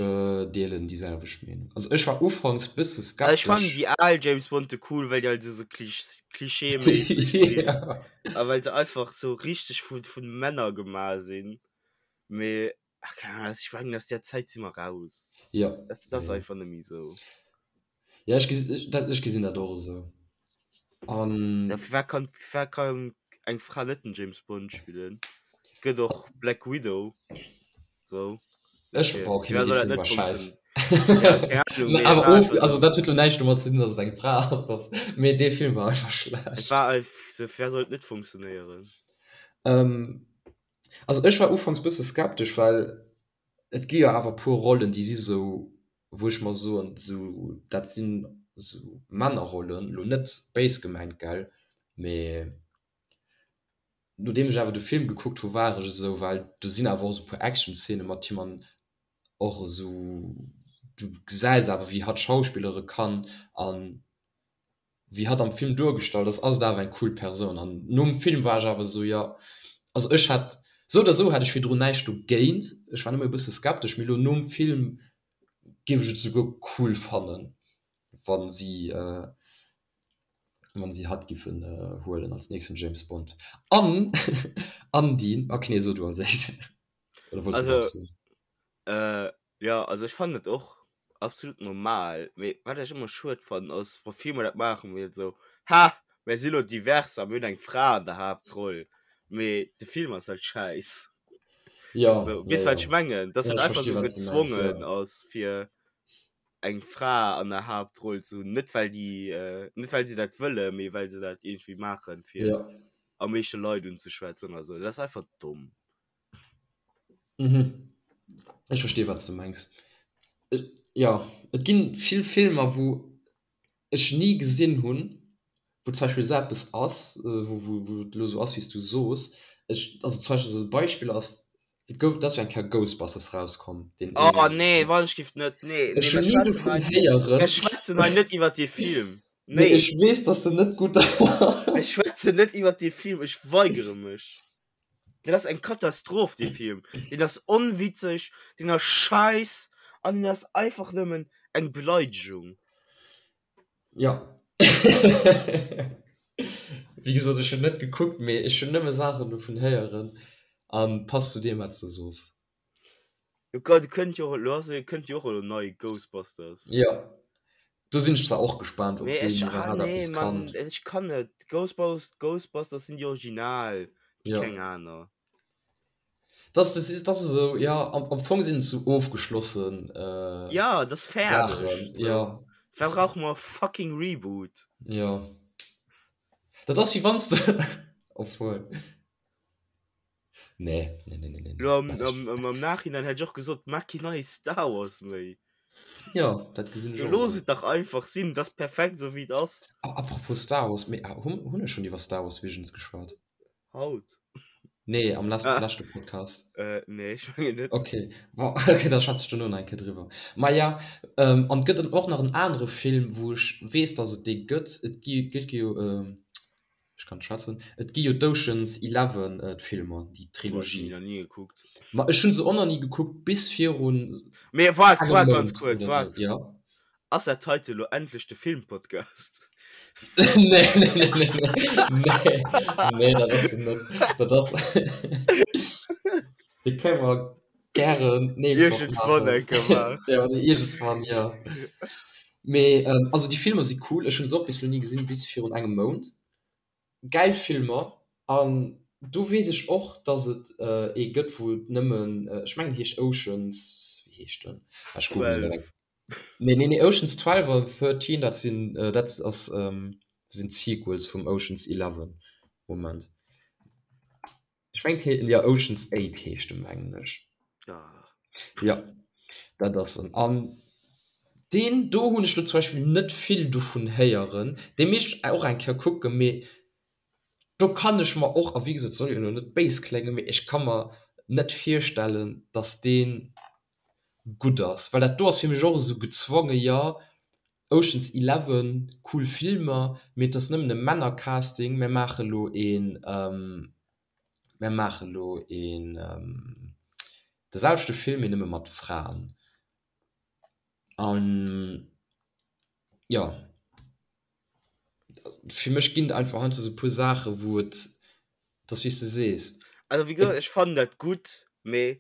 deelen déi selwecht Meenung. Also ech war ufanks bësse Also ech fannen skeptesch. déi al James Bonde cool, well déi halt esou klischeeméisseg sinn Ja. a well se einfach sou richteg vu vu Männer gemaach sinn. Mee Ach, keine Ahnung, ech mengen aus där Zäit si mer raus. Ja. Dat, dat ass Ja. einfach net méi esou. Ja, ech gesi, ech, dat, ech gesinn dat och esou. An. Ja, firwat kann, firwat kann eng Fra net den James Bond spillen? Gëtt och Black Widow. So. Ech, Fir, boah, okay, firwat mee soll dee dat Film net war scheiß. funktionieren? Ja, keng Ahnung, mee et Awer war of, einfach also sou. dat huet lo näischt domat ze dinn, datt et eng Fra ass, dat, mee dee Film war einfach Et schlecht. war einfach sou, firwat soll et net funktionéieren? Ähm, Also ech war ufanks bësse skeptesch, well et gi jo awer puer Rollen, déi si sou, wou ech mer soen, sou dat sinn sou Männerrollen, lo net béis gemengt, gell, mee nodeem ech awer de Film gekuckt hu war ech esou, well do sinn awer och sou puer Actionszene mat him an och esou, du gesäis awer wéi hatt schauspillere kann an wéi hatt am Film duergestallt ass, ass et awer eng cool Persoun. An nom Film war ech awer esou, jo, also ech hätt, sou oder sou hätt ech virdrun näischt dogéint, ech war nëmme e bësse skeptesch, mee elo nom Film géif ech et souguer cool fannen, wa si, wa si hatt giffen huelen als nächsten James Bond. An, an déi, ok, nee, so du als éischt, oder wollts du nach Also, eppes soen? Jo, also ech fannen et och absolut normal, mee wat ech ëmmer schued fannen ass wa Filmer dat maachen wéi esou, ha mär si lo divers a mir hunn eng Fra an der Haaptroll, mee de Film ass halt schäiss. Ja, So, ja, weess wat ja. ech mengen? Dass Ja, dat ech einfach versti sou wat s du mengs, gezwongen ja. ass fir eng Fra an der Haaptroll ze hunn, net well déi, net well se dat wëllen, mee well se dat iergendwéi maachen fir Ja. am meeschte Leit unzeschwätzen oder sou. Dat ass einfach domm. Mhm. Ech verstinn, wat s de mengs. Jo, et ginn vill Filmer, wou ech ni gesinn hunn, wou zum Beispill esou eppes ass, wou wou et elo esou ass, wéi s du soos. Ech, also zum Beispill esou e Beispill ass, et gouf, et ass jo eng Kéier Ghostbusters rauskomm, deen Oh nee, wann ech giff net, nee, nee, Ech hunn ni dovun héieren. Mir schwätzen hei net iwwer dee Film. Nee. Mee ech weess, dass en net gutt ass. Ech schwätzen net iwwer dee Film, ech weigere mech. Dat ass eng Katastroph dee Film. Deen ass onwitzeg, deen ass scheiss an deen ass einfach nëmmen eng Beleidegung. Ja. Wéi gesot, ech hunn net gekuckt, mee ech hunn nëmme Saachen dovun héieren an passt zu deem wat s de soos. Jo gott, et kënnt jo och elo, also et kënnt jo och elo nei Ghostbusters. Jo, do sinn ech zwar och gespaant, ob Nee, deen ech, ah iwwerhaapt nee, eppes Mann, kann. ech kann net. Ghostbus Ghostbusters sinn déi Original, Jo. keng aner. Das, das ist, das ist esou, jo, am, am Fong sinn et sou ofgeschlossen äh, Ja, dat ass fäerdeg. Saachen, So. jo. Wat brauche mer e fucking Reboot? Jo. Dat ass wéi wann s de, obwuel. Nee, nee, nee, nee, nee. Lo am, am, am, am Nachhinein hätt ech och gesot, maach keen neie Star Wars méi. Ja, dat gesinn ech So, och looss esou. et dach einfach sinn, dat ass perfekt esou wéi et ass. Ah, apropos Star Wars, mee ah, hunn, hunn ech schonn iwwer Star Wars Visions geschwat? Haut? Nee, am les Ah. leschte Podcast. Äh, nee, ech mengen net. Okay, bon, okay, da schwätze ech dono nach eng Kéier driwwer. Ma ja, ähm, an et gëtt och nach en anere Film, wou ech weess, dass et dee gëtt. Et gi, gëtt jo, ähm, Ech kann schwätzen. Et gi jo d'Ocean's Eleven d'Filmer, déi Boah, ech hunn Trilogie. déi nach ni gekuckt. Ma ech hunn se och nach ni gekuckt, bis virun Mee waart, engem waart ganz Mount kuerz, oder sou. waart. Ja. Ass dat heite lo endlech de Filmpodcast? Nee, nee, nee, nee, nee, nee, nee, dat ass en net. Dat ass. Dee kënne mer gären d'nächst Woch Iergendwann maachen. eng Kéier maachen. Ja, oder iergendwann, jo. Mee also déi Filmer si cool, ech hunn se och bis elo ni gesinn, bis virun engem Mount. Gäil Filmer an do weess ech och, dass et ee gëtt wou et nëmmen, ech mengen heescht Oceans, wéi heescht en? Ah ech googelen dat eng. 12. Nee nee nee Oceans 12 an 13 dat sinn dat ass sinn d'Sequels vum Oceans 11. Moment. Ech mengen jo Oceans 8 heescht en mengen ech. Jo dat ass en. An deen do hunn ech lo zum Beispill net vill dovun héieren. Dee misst ech och eng Kéier kucken, mee do kann ech mer och, a wéi gesot soll jo elo net béis kléngen, mee ech ka mer net virstellen, datt dee gutt ass, well dat do ass fir mech och esou gezwonge, jo Ocean's Eleven, cool Filmer, mee et ass nëmmen e Männercasting, mär maache lo een, mär maache lo een de selwechte Film, mee nëmme mat Fraen. An jo, fir mech ginn et einfach heiansdo esou e puer Saache wou et, et ass wéi s de sees. Also wéi gesot, ech fannen dat gutt, mee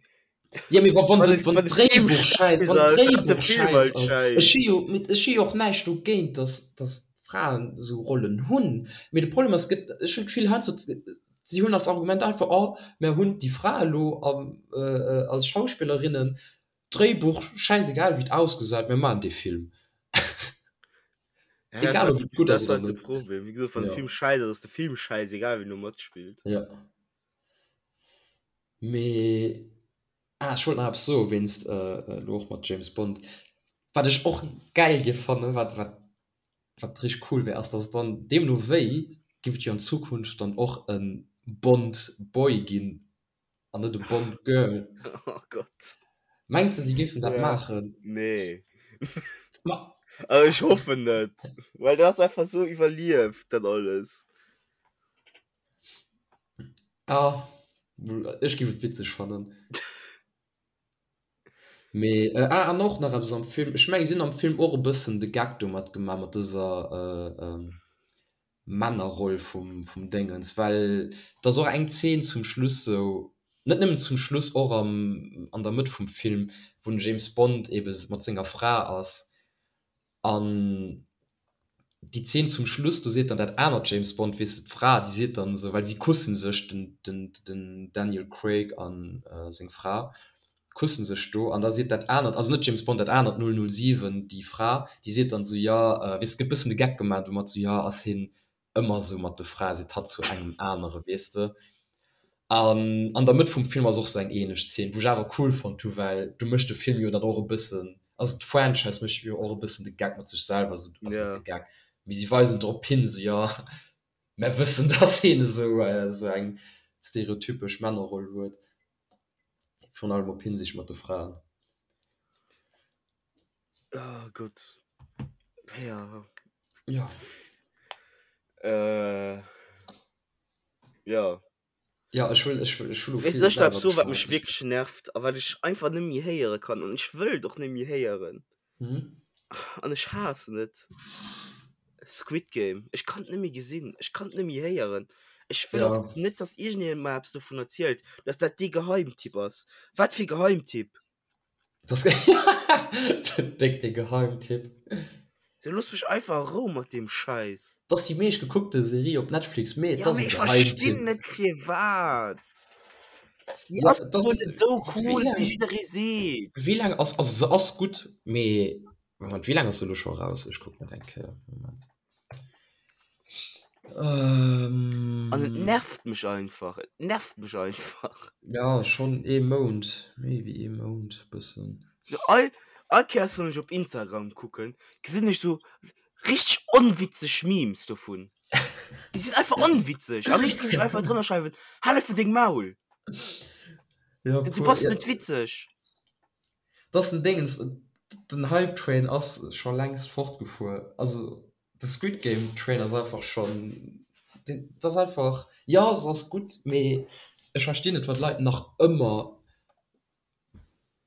Ja, mee wa wann wann de et wann wann de Film d'Dréibuch schäiss schäiss wann ass, ass de d'Dréibuch Film schäiss halt ass. Ech schäiss. hu jo mee ech hu jo och näischt dogéint, datt datt Fraen esou Rollen hunn, mee de Problem ass, gëtt ech hunn d'Gefill heiansdo si hunn als Argument einfach, oh mär hunn déi Fra elo am als Schauspillerinnen, Dréibuch schäisegal wéi et ausgesäit, mir maachen dee Film. Ja, Egal ob et gutt dat ass ass oder halt de net. Problem. Wéi gesot, wann de Ja. Film schäiss ass, ass de Film schäiss, egal wien do matspillt. Ja. Mee ah, ech wollt nach eppes soe wéinst elo och mat James Bond. Wat ech och gäil géif fannen, wat wat wat richteg cool wär, ass datt et dann deemno wéi géif et jo an Zukunft dann och e Bond Boy ginn an net e Bond Girl. Oh Gott. Mengs de si géifen dat Ja. maachen? Nee. Ma Also ech hoffen net, well dat ass einfach sou iwwerlieft dat alles. Ah, ech géif et witzeg fannen. Mee äh, ah, an och nach eppes am Film, ech menge si hunn am Film och e bëssen de Gag domat gemaach mat dëser äh, Männerroll vum, vum Déngens, well et ass och eng Zeen zum Schluss sou, net nëmmen zum Schluss, och am, an der Mëtt vum Film, wou den James Bond ebe mat senger Fra ass an déi Zeen zum Schluss, do seet dann dat anert James Bond, weess de, d'Fra, déi seet dann esou, well si kusse sech, den, den, den Daniel Craig a seng Fra kusse sech do, an da seet dat anert, also net James Bond, dat anert 007, déi Fra, déi seet dann esou, jo, weess de, gëtt bëssen de Geck gemaach domat, esou, jo, ass hien ëmmer esou mat de Frae, seet hatt zu engem anere, weess de. An an der Mëtt vum Film ass och sou eng ähnlech Szene, wou ech awer cool fonnt hu, well du mécht de Film jo dann och e bëssen, also d'Franchise mécht jo och e bëssen de Geck mat sech selwer, sou, also net de Geck, mee si weisen drop hin, sou jo, mär wëssen, dass hien esou esou eng stereotypesch Männerroll huet, virun allem op Hinsicht mat de Fraen. Oh Gott. Ja. Ja. Äh, ja. Ja, ech wëll, ech wëll, ech wëll Weess ech dat so, wat mech wierklech nervt a wat ech einfach net méi héiere kann an ech wëll et och net méi héieren. Mhm. An ech haassen et. Squid Game. Ech kann et net méi gesinn. Ech kann et net méi héieren. Ech wëll och Ja. net, dass iergendeen mer eppes dovun erzielt, dass dat dee Geheimtipp ass. Wat fir Geheimtipp? Das Déck de Geheimtipp. So looss mech einfach a Rou mat deem Schäiss. Dat ass déi meescht gekuckte Serie op Netflix, mee et Ja, ass mee e ech verstinn Geheimtipp. net firwat. Déi Ja, ass et wuel ass net esou wéi cool, wéi laang jidderee seet. wéi laang ass also se ass gutt, mee Moment, wéi laang ass se elo scho eraus? Ech kucken et eng Kéier, Moment. An et Ähm. nervt mech einfach, et nervt mech einfach. Ja, schonn ee Mount, méi wéi ee Mount bëssen. So all, all Kéiers wann ech op Instagram kucken, gesinn ech so richteg onwitzeg Memes dovun. Déi sinn einfach onwitzeg. Am léifsten géif ech einfach drënner schreiwen, Hal einfach deng Maul! Ja, Du puer, bass ja. net witzeg. Dass den Dingens, den Hype Train ass scho längst fortgefuer. Also de Squid Game Train ass einfach schonn, dat ass einfach, jo se ass gutt, mee ech verstinn net wat Leit nach ëmmer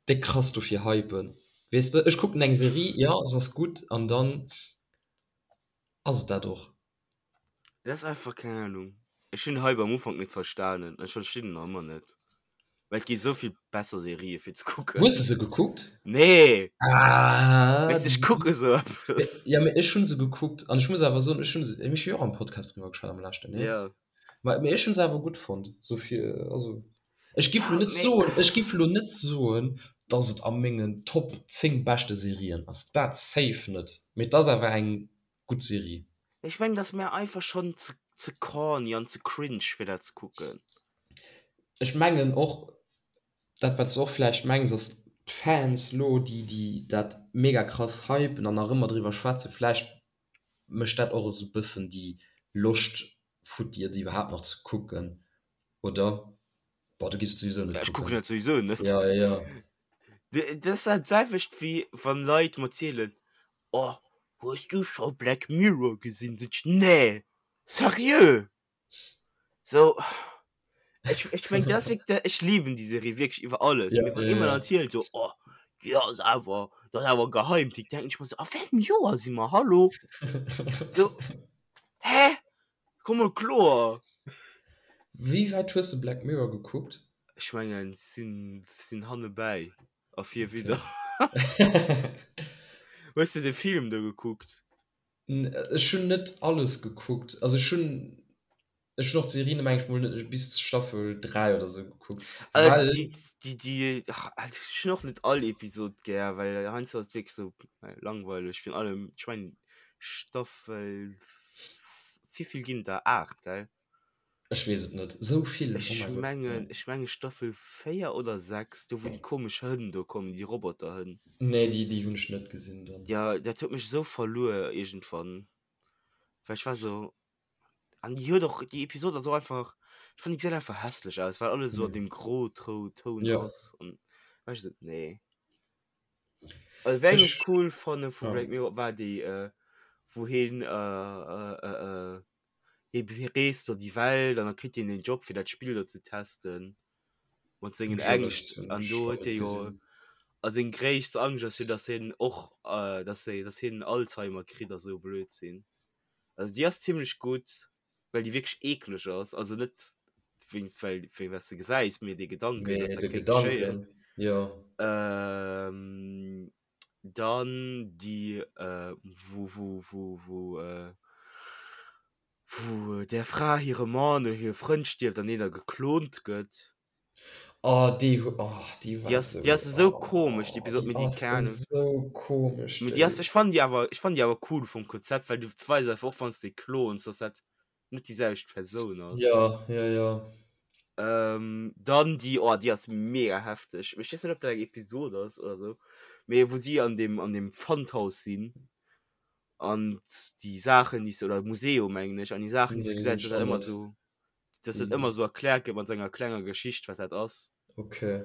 déck krass dofir hypen. Weess de, ech kucken eng Serie, jo se ass gutt an dann ass et dat och. Dat ass einfach, keng Ahnung. Ech hunn Hype am Ufank net verstanen an ech verstinn en nach ëmmer net. Well et gi sou vill besser Serië fir ze kucken. Hues de se gekuckt? Nee! Ah! Weess de, ech kucke sou eppes. Ja, mee ech hunn se gekuckt an ech muss awer soen, ech hunn se, ech hu jo och am Podcast driwwer geschwat am leschten, nee? Ja. Ma mee ech hunn se awer gutt fonnt, sou fir, also ech giff Ja, lo net mee. soen, ech giff lo net soen, dass et a mengen Top 10 beschte Serien ass, dat safe net, mee et ass awer eng gutt Serie. Ech mengen et ass mär einfach schon ze ze corny an ze cringe fir dat ze kucken. Ech mengen och dat wat s de och vläicht mengs ass d'Fans lo déi déi dat mega krass hypen an nach ëmmer driwwer schwätzen, vläicht mécht dat och esou bëssen déi Loscht futti et iwwerhaapt nach ze kucken, oder? Boah, du giss et souwisou net Ech kucken kucken. dat souwisou net. Ja, ja, ja. Dat ass dat selwecht wéi wann Leit mer zielen, Oh, hues du scho Black Mirror gesinn? Sot ech, Nee! Seriö? So, ech, ech meng, dat ass wierk, ech liben déi Serie wierklech iwwer alles. Ja, Mee wann ja, ee mer ja. dann zielt so, oh, déi ass awer, dat ass awer e Geheimtipp, denken ech mer so, a wéi engem Joer si mer? Hallo? So, hä? Komm mol kloer! Wéi wäit hues de Black Mirror gekuckt? Ech mengen, sinn, sinn hannebäi. A fir wieder. Hues de de Film do gekuckt? Ech hunn net alles gekuckt. Also ech hunn ech hunn och d'Serie meng ech mol net bis Staffel 3 oder sou gekuckt. Äh, Well déi, déi, déi, ach, ech hunn och net all Episod gär, well heiansdo ass et wierklech sou langweileg. Virun allem, ech mengen Staffel, wéivill ginn et der? 8, gell? Ech weess et net. Sou vill? Oh Ech mäi Gott. mengen, ech mengen Staffel 4 oder 6, do wou déi komesch Hënn do kommen, déi Roboterhënn. Nee, déi, déi hunn ech net gesinn dann. Ja, dat huet mech esou verluer iergendwann, well ech war sou, an déi huet och, déi Episod ass och einfach, ech fannen déi gesäit einfach hässlech aus, well alles esou an deem Gro-Toun Ja. ass an war ech esou, nee. Also wéi eng ech Ech, cool fanne vu ja. Black Mirror war déi, wou hien äh, Hie bereest do déi Welt an da kritt hien den Job fir dat Spill do ze testen mat sengen Ängscht an do huet hie jo a seng gréisst Angscht ass jo dass hien och dass hie dass hien Alzheimer kritt a sou Blödsinn. Also déi ass zimlech gutt, well déi wierklech eekleg ass, also net wéinst well wéi wat s de gesäis, mee dee Gedanken dass Mee dat de kéint geschéien. Gedanken, jo. Dann déi wou wou wou wou wou där Fra hire Mann oder hire Frënd stierft an deen da geklont gëtt. Oh déi hu oh déi Déi war ass déi esou ass esou komesch déi oh Episod, déi mee déi ass keng Ahnung. esou komesch Mee déi ass déi. ech fannen déi awer ech fannen déi awer cool vum Konzept, well du weis einfach och wann s de klons, dass dat net déi selwecht Persoun ass. Jo jo jo. Ähm, dann déi, oh, déi ass mega hefteg. Mee ech weess net, ob dat eng Episod ass oder sou. Mee wou si an deem, an deem Pfandhaus sinn an déi Saachen, déi se, oder Museum, mengen ech, an déi Saachen, déi se Nee, gesäit, hunn dass ech dat och ëmmer net. sou, dass dat ëmmer sou erkläert gëtt mat sou enger klenger Geschicht, wat dat ass. Okay.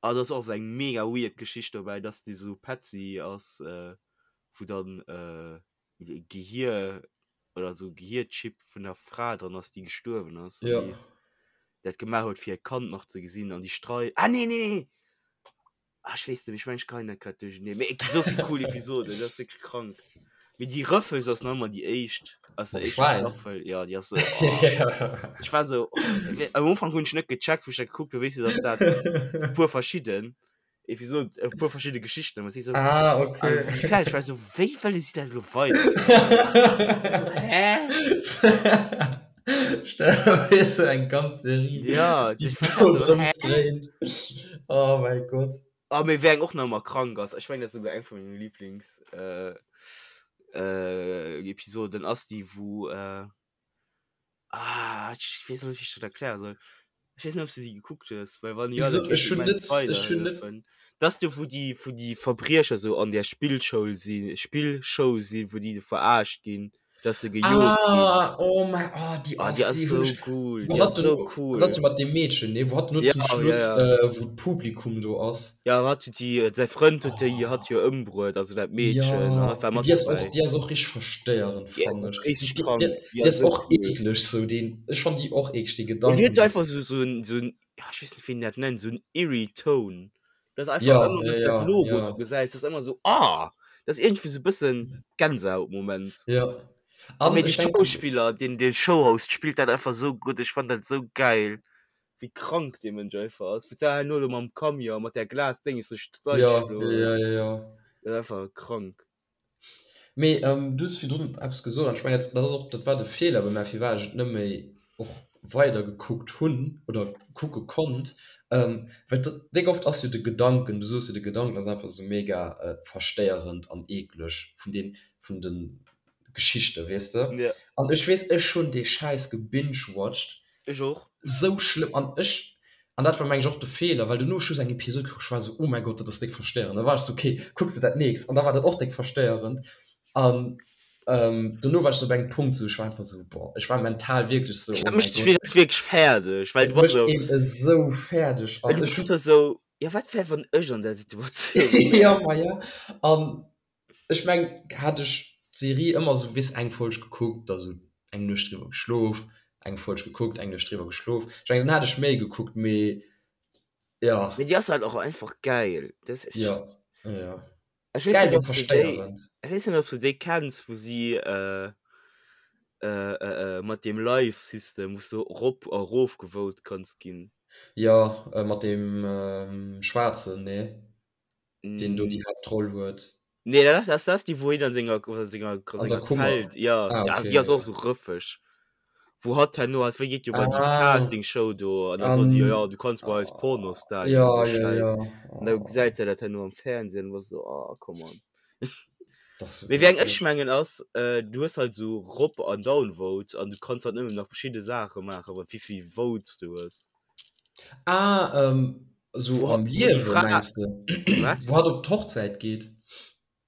Ah, do ass och sou eng mega weird Geschicht dobäi, dass déi sou Petzi ass, wou dann Gehir oder sou Gehirchip vun der Fra dran ass, déi gestuerwen ass an Ja. déi dat gemaach huet fir hiert Kand nach ze gesinn an déi Strei ah nee nee nee ah ech weess net méi, ech mengen ech geheien dat grad duercherneen, mee et gi sou vill cool Episoden, dat ass wierklech krank. Mee déi Rëffels ass nach ëmmer déi éischt aus der Mam éischter Schwäin? Staffel, jo déi ass sou oh ech war sou oh am Ufank hunn ech net gecheckt wou ech dat gekuckt hunn, weess de dass dat e puer verschidden Episode e puer verschidde Geschichten was ich so ah, okay. also, wie fertig war so wéi wëlle si dat lo weider so, hä Stell so eng ganz Serie ja die ich war do so, drëms hä? dréint oh mein Gott Ah, mee wéi eng och nach ëmmer krank ass ech mengen dat ass souguer eng vun menge Lieblings äh, äh, Episoden ass déi wou äh, Ah, ech weess net, wéi ech dat erkläre soll. Ech weess net, ob s du déi gekuckt hues, well wann Wéi jo, da gesot, kéint ech ech hunn immens net, ech hunn net. weiderhëllefen. Dat ass do, wou déi, wou déi Verbriecher sou an där Spillschoul sinn, Spillshow sinn, wou déi sou verarscht ginn, dass se gejot ginn. Ah, oh mäi, oh, déi Ah, déi ass, ass déi hunn sou ech, cool, wou déi hatt ass sou dono, cool. dat ass jo mat deem Meedchen, nee, wou hatt dono Ja, zum ja, Schluss, ja. äh, wou d'Publikum do ass. Ja, hatt huet déi, säi Frënd huet déi, Oh. hatt jo ëmbruet, also dat Meedchen, an Ja, hatt war mee mat déi ass och, dobäi. déi ass och richteg verstéierend, Déi fannen ass ech. richteg Déi, krank, déi, déi déi ass ass sou och cool. eekleg, sou deen, ech fannen déi och eekleg, dee Déi huet Gedanken, sou dass. einfach sou, sou en, sou en, ja, ech weess net, wéi een dat nennt, sou en eerie Tone. Dat ass einfach Ja, ëmmer, ja, wann s du dat ja, Logo do ja. gesäis, dat ass ëmmer sou, ah, dat ass iergendwéi sou e bëssen Gänsehautmoment. Ja. An Mee de ech denken. Schauspiller, deen, dee Showhost spillt dat einfach sou gutt, ech fannen dat sou geil. Wéi krank dee Mënsch einfach ass. Wou d'Sarah herno do mam Camion mat där Glasdénges duerch d'Leit Ja, geschloen ja, huet. ja, ja. Dat ass einfach krank. Mee du hues virdrun eppes gesot an ech mengen, dat ass och, dat war de Feeler bei mär, firwat ech et net méi och weider gekuckt hunn oder kucke konnt, well dat déck oft ass jo de Gedanken, du soos jo, de Gedanken ass einfach esou mega verstéierend an eekleg vun den, vun de Geschichten, weess de. Ja. An ech weess, ech hunn dee Schäiss gebingewatcht Ech och. Sou schlëmm an ech, an dat war meng ech och de Feeler, well dono ech hu sou eng Episod gekuckt, ech war sou oh mäi Gott dat ass déck verstéierend, da war ech sou ok kucks de dat nächst an da war dat och déck verstéierend an dono war ech sou op engem Punkt sou ech war einfach sou boah ech war mental wierklech sou Dat oh mäi mécht dech Gott. wierklech wierklech fäerdeg, well Et du bass mécht sou. een esou fäerdeg Well an du ech bass hunn. da sou, jo wat wär wann ech an där Situatioun wär? Jo ma jo an Ech meng hätt ech d'Serie ëmmer sou weess eng Folg gekuckt, da sou eng Nuecht driwwer geschlof, eng Folg gekuckt, eng Nuecht driwwer geschlof, ech mengen dann hätt ech méi gekuckt, mee jo. Mee déi ass halt och einfach gäil, dat Jo, jo. Ech weess Gäil net mee ob s de déi, verstéierend. ech weess net ob s de déi kenns wou si mat deem Live System wou s de rop a rof gevote kanns ginn. Jo, mat deem Schwaarzen, nee? Deen do déi Haaptroll huet. Nee, dat ass, dat ass déi, wou hien an senger, an senger, an An der senger Kummer. Zelt, ja, Ah, da, okay, déi ass och ja. sou rëffeg. Wou hatt herno, hatt wéi geet jo bei déi Ah, Castingshow do an da soen si, jo, an, jo, du kanns bei eis Pornostar ginn ja, an sou ja, Schäiss. ja. An da Oh, gesäit se dat herno am Fernsehen an war sou, oh, come on. dat ass sou Mee wéi eng ech eklech. mengen ass, äh, du hues halt sou Rop an Downvote an du kanns halt nëmmen nach verschidde Saache maachen, wat wéivill Votes du hues. Ah, ähm, sou Wou, am wou déi Liewe Fra, mengs de? wat? Wou hatt op d'Hochzäit geet?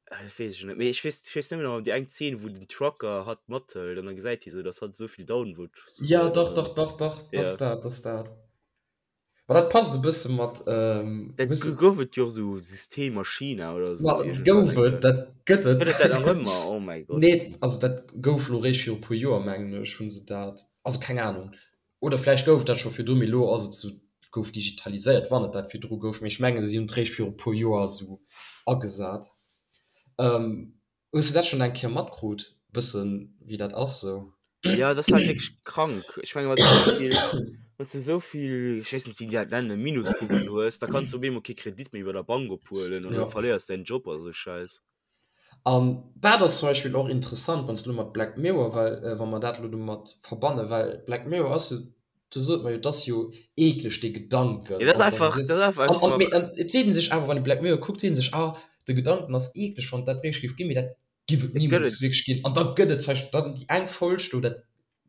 Ah, dat weess ech net méi. Ech weess, ech weess nëmmen nach déi eng Zeen, wou den Trucker hatt mathëlt an da gesäit hie sou, dass hatt esou vill Downvotes Ja, huet an dach, dann, dach, dach, dach, dat ja. ass dat, dat ass dat. Ma dat passt e bësse mat, ähm, Dat hues de. gouf et jo och sou System a China oder Ma sou iergendwann gouf eng et, Kéier. dat gëtt et. Gëtt et dat nach ëmmer? Oh mäi Gott. Nee, also dat gouf lo réischt viru puer Joer, mengen ech, hu se dat, also keng Anung. Oder vläicht gouf et dat scho virdru, mee elo ass et esou, gouf digitaliséiert, wann et dat virdru gouf. Mee ech mengen, si hunn et réischt viru puer Joer esou agesat. Hues de dat schonn eng Kéier matkrut, bëssen, wéi dat ass esou? Jo, dat ass halt wierklech krank. Ech menge wann s de esou vill, wann s de esou vill, ech weess net, wéi déi dat nennen, Minuspunkten hues, da kanns du op eemol kee Kredit méi bei der Bank ophuelen oder du verléiers däin Job a sou Schäiss. An dat ass zum Beispill och interessant, wann s de elo mat Black Mirror, well wa mer dat elo domat verbannen, well Black Mirror ass jo, do sot mer jo, et ass jo eekleg dee Gedanken, Ja, dat ass och wann einfach, du sees, dat ass an, an, mee einfach. an et seet ee sech awer, wann ee Black Mirror kuckt, seet ee sech, ah, de Gedanken ass eekleg, wann et dat wierklech géif ginn, mee dat giff et Et gëtt nimools et. wierklech ginn. An da gëtt et zum Beispill dann déi eng Folg do, dat,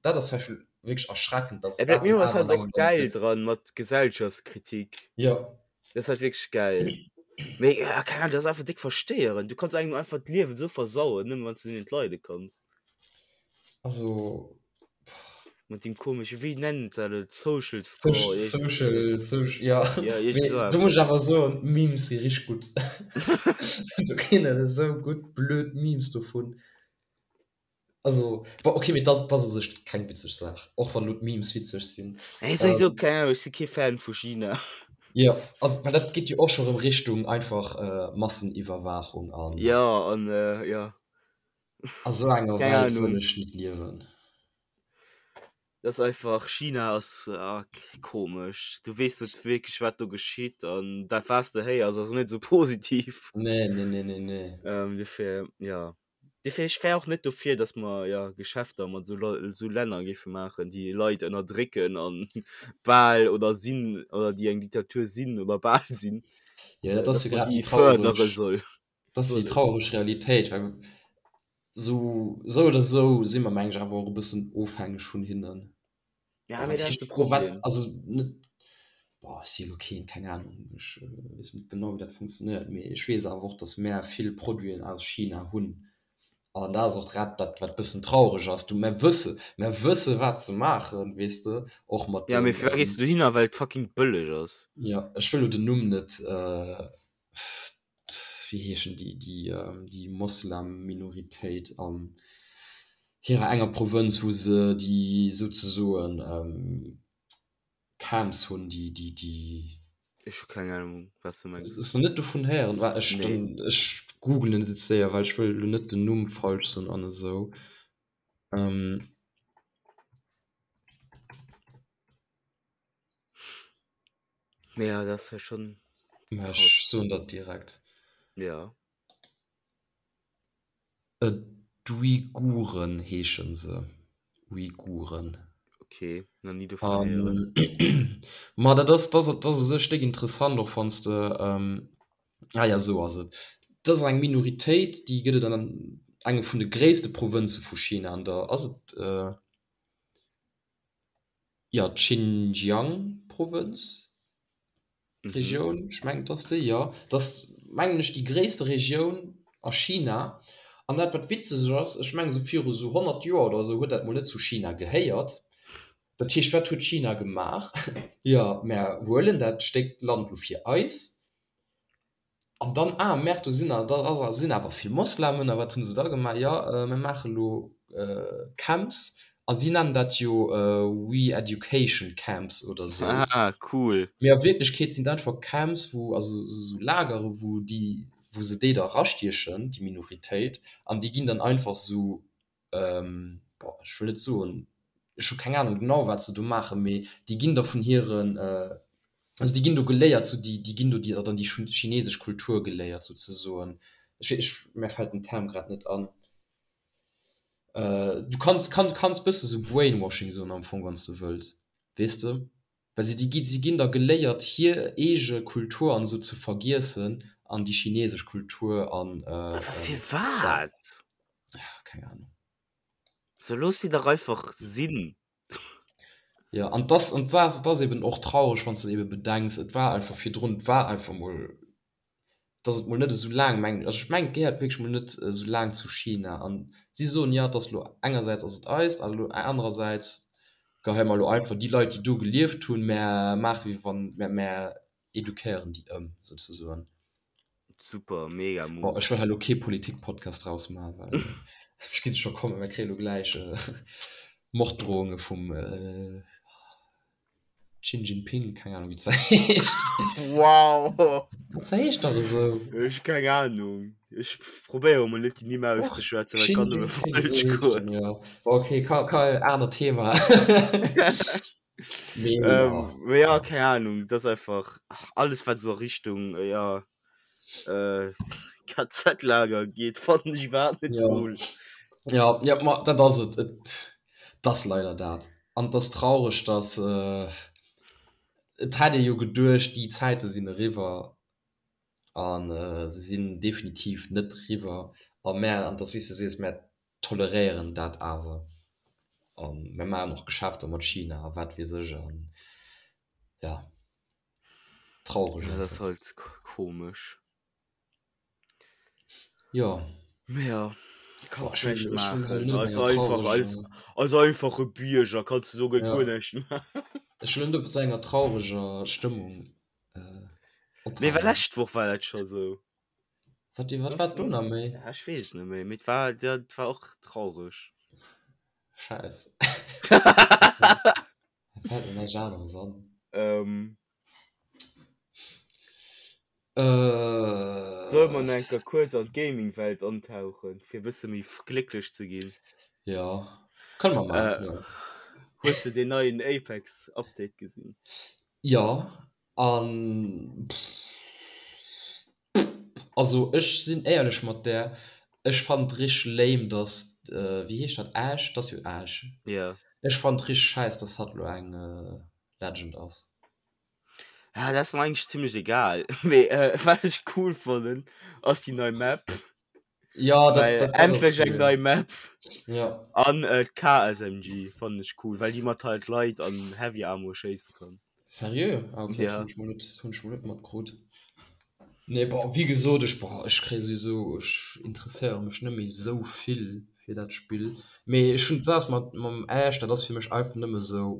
dat ass zum Beispill. wierklech erschreckend, dass et dat mir dann ass awer halt an och engem Land geil gëtt. dran mat Gesellschaftskritik. Jo. Dat ass halt wierklech geil. Mee ja, keine Ahnung, dat ass einfach déck verstéierend. Du kanns engem einfach d'Liewen esou versauen, nëmme wann s du net leide kanns. Also Mat deem komesche, wéi nennen se dat, Social Score? Social, Iergend- social, social, ja. Ja, iergend Mee esou do muss eppes. ech awer soen, d'Memes si richteg gutt. Do ginn et esou gutt blöd Memes dovun. Also, bon, okay, mee dat ass u sech keng witzeg Saach, och wann elo d'Memes witzeg sinn. Ey, souwisou, keng Ahnung, ech si kee Fan vu China. Jo, also, well dat geet jo och scho rëm Richtung einfach Masseniwwerwaachung an. Jo, an jo. A sou enger Keng Welt wëll Ahnung. ech net liewen. Dat ass einfach, China ass komesch. Du weess net wierklech, wat do geschitt an dat, wat s de héiers, ass och net esou positiv. Nee, nee, nee, nee, nee. Dofir, jo. Dofir, ech wär och net dofir, datt mer, jo, Geschäfter mat esou Lei, esou Länner géife maachen, déi Leit ënnerdrécken an bal oder sinn, oder déi eng Diktatur sinn oder bal sinn, Jo, dat ass datt jo mer grad déi déi fërdere traureg, soll. dat ass déi traureg Realitéit, well sou, sou oder sou si mer, meng ech, awer och e bëssen ofhängeg vun hinnen. Ja, Wat mee dat ass heescht de pro wat, Problem. also net, boah, ech si elo keen, keng Ahnung, ech weess net genau, wéi dat funktionéiert, mee ech weess awer och, datt mär vill Produiten aus China hunn. An dat ass och grad dat, wat e bëssen traureg ass. Du, mär wësse, mär wësse wat se maachen, weess de, och mat Ja, mee den, firwat gees du dohinner? Well et fucking bëlleg ass. jo, ech wëll elo den Numm net, wéi heeschen déi, déi, déi Moslem-Minoritéit an hirer enger Provënz, wou se déi souzesoen Camps hunn, déi, déi, déi. Ech hu keng Ahnung, wat s de mengs. Hues de net dovun héieren? Wa ech Nee. dann, ech googlen et jetzt séier, well ech wëll elo net den Numm falsch soen an esou. Ja, dat ass ja schon Mä krass. ech soen dat direkt. Ja. D'Uiguren heesche se. Uiguren. Okay, nach ni dovun héieren. An ma dat ass, dat ass, dat ass u sech déck interessant, och wann s de, ah ja, esou ass et. Dat ass eng Minoritéit, déi gëtt et an engem vun de gréisste Provënze vu China, an der, ass et, Jo, d'Xinjiang-Provënz, Regioun, ech mengen et ass déi, jo. Dat ass, mengen ech, déi gréisste Regioun a China. An dat, wat witzeg ass, ech mengen esou viru sou 100 Joer oder esou huet dat mol net zu China gehéiert. Dat heescht, wat huet China gemaach? Jo, mär huelen dat Stéck Land lo fir eis. An dann, ah merde, do sinn da sinn awer vill Moslemen. A wat hunn se da gemaach? Jo, mir maache lo Camps a si nennen dat jo Re-education Camps oder esou. Ah, cool. Mee a Wierklechkeet sinn dat einfach Camps, wou, also esou Lagere wou déi, wou se déi da erastiechen, déi Minoritéit, an déi ginn dann einfach esou, boah, ech wëll net soen, ech hu keng Ahnung genau wat se do maachen, mee déi ginn da vun hiren, also déi ginn do geléiert, sou déi déi ginn do déi dann déi chinesesch Kultur geléiert souzesoen. Ech ech mär fält den Term grad net an. Du kanns kann kanns bësse sou Brainwashing soen am Fong wann s de wëlls, weess de? Well si déi gi si ginn da geléiert hir eege Kultur an esou ze vergiessen an déi chinesesch Kultur an Awer firwat? Keng Ahnung. So looss si dach einfach sinn. Jo, an dass, an dass, et ass eben och traureg, wann s de eben bedenks, et war einfach virdrun, et war einfach mol, dass et mol net esou laang, mengen, also ech mengen, et gehéiert wierklech mol net esou laang zu China. An si soen, jo, et ass elo, engersäits ass et eist, an elo anerersäits geheie mer elo einfach déi Leit, déi do gelieft hunn, mär maache wéi wann, mär, mär eduquéieren déi ëm, souzesoen. Super, mega Bon, Move. ech wëll hei elo kee Politik-Podcast draus maachen, well ech ginn scho kommen, mir kréie lo gläich Morddrohunge vum Xi Jinping, keng Ahnung wéi se heescht. Wow! Dat heescht dach esou. Ech hu keng Ahnung. Ech probéiere mol net déi Nimm auszeschwätzen, well et Xi kann nëmme Jinping, falsch esou heescht goen. en, jo. Bon, okay, ka, ka, anert Thema. Mee Ähm, jo. mee ja, keng Ahnung, dat ass einfach alles wat esou a Richtung, ja, äh, KZ-Lager geet, fannen ech iwwerhaapt net Ja. cool. Ja, ja, ma dat ass et. Et et ass leider dat. An et ass traureg, dass äh, et hätt ee jo geduecht, déi Zäite sinn eriwwer an äh, se sinn definitiv net eriwwer. A mär, an et ass wéi s de sees, mär toleréieren dat awer. A mir maachen och Geschäfter mat China a wat weess ech an ja, traureg Ja, dat ass halt komesch. Jo. Mee ja, kanns näischt maachen. Als einfach, als, als einfache Bierger kanns du do guer näischt maachen. Ech wëll net op esou enger traureger Stëmmung ophalen. Mee war lescht Woch war dat scho sou. Wat, wat war do nach méi? Ja, ech weess et net méi, mee et war, dat war och traureg. Scheiss. Da fält mir näischt aneres an. Ähm. Äh. Solle mer nach eng Kéier kuerz an d'Gaming-Welt antauchen, fir e bësse méi glécklech ze ginn? Jo, kënne mer maachen, jo. Hues de deen neien Apex-Update gesinn? Jo, An also ech sinn éierlech mat där, ech fannen et richteg lame dass, wéi heescht dat, Ash? Et ass jo Ash. Jo. Ech fannen et richteg schäiss dass hatt elo eng Legend ass. Ja, dat ass mer eigentlech zimlech egal, mee wat ech cool fannen ass déi nei Map. Ja, dat, Well dat, dat ass endlech eng cool. nei Map. Ja. An äh, d'KSMG fannen ech cool, well déi mat halt Light an Heavy Ammo schéisse kann. Seriö? Ah, okay, dat Ja. hunn ech mol net, hunn ech mol net matkrut. Nee, bon, wéi gesot, ech, boah, ech kréie souwisou, ech interesséiere mech net méi esou vill fir dat Spill. Mee ech hunn d'Saach mat mam Ash, dat ass fir mech einfach nëmme sou,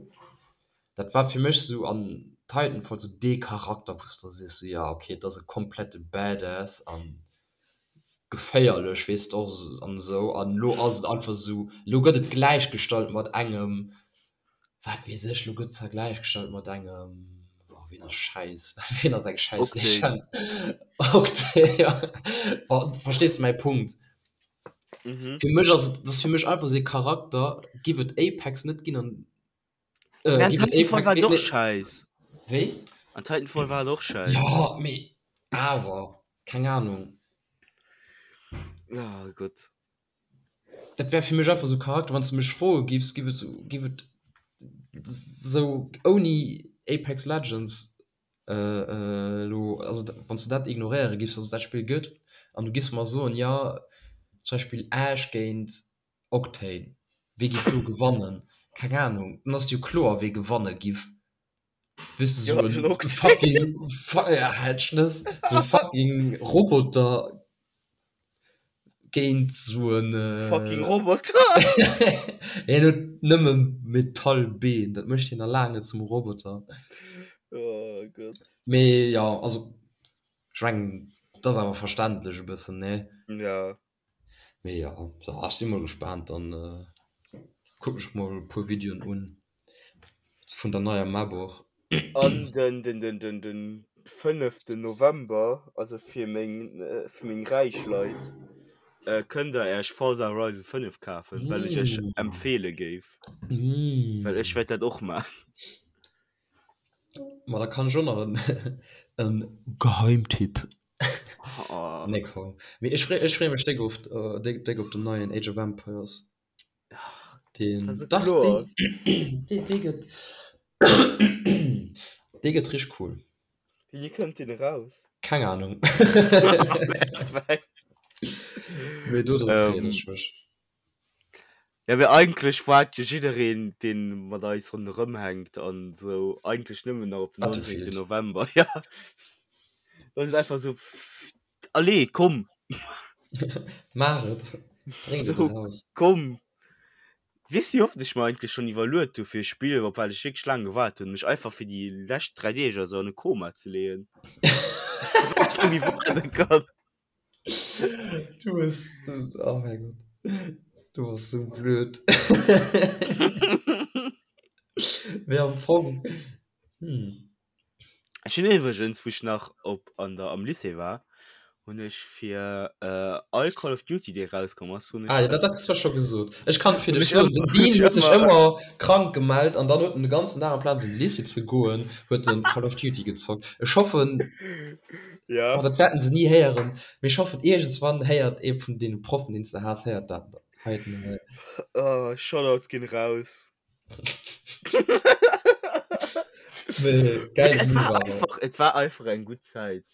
dat war fir mech sou an Titanfall sou dee Charakter, wou s de sees, sou, ja, okay, et ass e komplette Badass an geféierlech weess de och an esou an elo ass et einfach esou, elo gëtt et gläichgestallt mat engem, wat weess ech, elo gëtt et gläichgestallt mat engem, oh ween ass schäiss, ween ass eng schäiss Legend, Octane, ja, verstees de mäi Punkt? Fir mech ass et, dat ass fir mech einfach esou ee Charakter, giff et Apex net ginn an Äh, An Titanfall war doch scheiß. Wéi? An Titanfall war doch scheiß. Ja, mee awer, keng Ahnung. Oh Gott. Dat wär fir mech einfach sou Charakter, wann s de mech froe giffs, giff et sou, giff et sou ouni Apex Legends elo, also wann s de dat ignoréiere giffs, dass et dat Spill gëtt, an du giffs mer soen, jo, zum Beispill Ash géint Octane, Wee giff do gewannen? Keng Ahnung, dann ass et jo kloer wee gewanne giff. Weess de, sou en fucking, halt d'Schnëss, sou fucking Roboter géint sou en. Fucking Roboter? Hien huet nëmme Metallbeen, dat mécht hien nach laang net zum Roboter. Oh Gott. Mee jo, also ech mengen, dat ass awer verständlech e bëssen, nee? Ja. Mee jo, ech si mol gespaant, dann kucken ech mol e puer Videoen un vun der neier Map och. An den den den den den fënneften November, also fir meng fir meng räich Leit, kënnt der äech Forza Horizon 5 kafen, well ech iech empfeele géif, well ech wäert dat och man. Ma da kann ech och nach en Geheimtipp Oh. Nee, komm. Mee ech free, ech free mech déck op, äh, déck, déck op den neien Age of Empires. Den, Das ist dach, kloer. deen, dee, dee gëtt, dee gëtt richteg cool. Wéini kënnt deen eraus? Keng Ahnung. Perfekt. Mee do drop freeën Ähm, ech mech. Ja, mee eigentlech waart jo jiddereen, deen mat eis ronderëm hänkt an esou, eigentlech nëmmen nach op den 19. Battlefield. November. Ja. Dat ass einfach esou, allez, komm! Maach et! Bréngt et Esou, eraus. komm! Weess de, wéi oft ech mer eigentlech schonn iwwerluet hu fir e Spill, op wat ech wierklech laang gewaart hunn, mech einfach fir déi lescht 3 Deeg oder sou an e Koma ze leeën, well ech net méi waarde kann. Du bist, du, oh mein Gott. Du warst so blöd. Mee am Fong, hm. Ech hunn iwwregens, wou ech nach op an der am Lycée war, hunn ech fir äh, all Call of Duty, dee rauskomm ass, hunn ech Ah, ja, dat, dat hues du zwar scho gesot. Ech kann fir hunn dech ech soen, ëmmer, den hunn Dean ech huet sech ëmmer ëmmer krank gemellt an dann huet en de ganzen Dag amplaz an de Lycée ze goen, huet en Call of Duty gezockt. Ech hoffen, Ja. Oh, dat wäerten se ni héieren. Mee ech hoffen, iergendswann héiert ee vun deene Proffen, deen s de has, héiert dat heiten hei. Oh, Shoutouts ginn raus. Mee geil Et Move war awer. einfach, et war einfach eng gutt Zäit.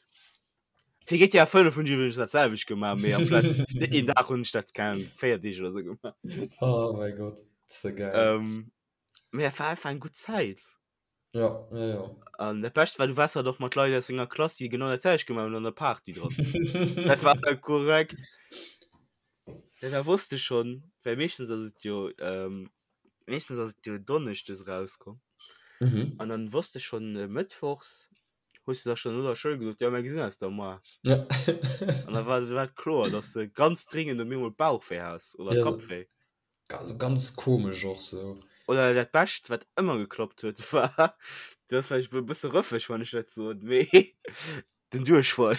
Fir GTA 5 hunn ech iwwregens dat selwecht gemaach, mee amplaz een Dag hunn ech dat, keng Ahnung, 4 Deeg oder sou gemaach. Oh mäi Gott. Ze geil. Ähm, mee et war einfach eng gutt Zäit. Ja, ja, ja. An dat Bescht war, du waars halt och mat Leit aus denger Klass, déi genau dat selwecht gemaach hunn an der Party dran. Dat war da korrekt. Ja, da wosst de schonn, well meeschtens ass et jo, ähm, meeschtens ass et jo donneschdes erauskomm. Mhm. An dann wosst de schonn äh, mëttwochs, hues de da schonn no der Schoul gesot, ja, mir gesinn eis da moar. Ja. An da war, war et kloer, dass de ganz dringend op eemol Bauchwéi has oder Ja. Kappwéi. Ganz, ganz komesch och sou. Oder dat Bescht, wat ëmmer geklappt huet, war, dat ass vläicht e bësse rëffeg, wann ech dat soen, mee den Duerchfall.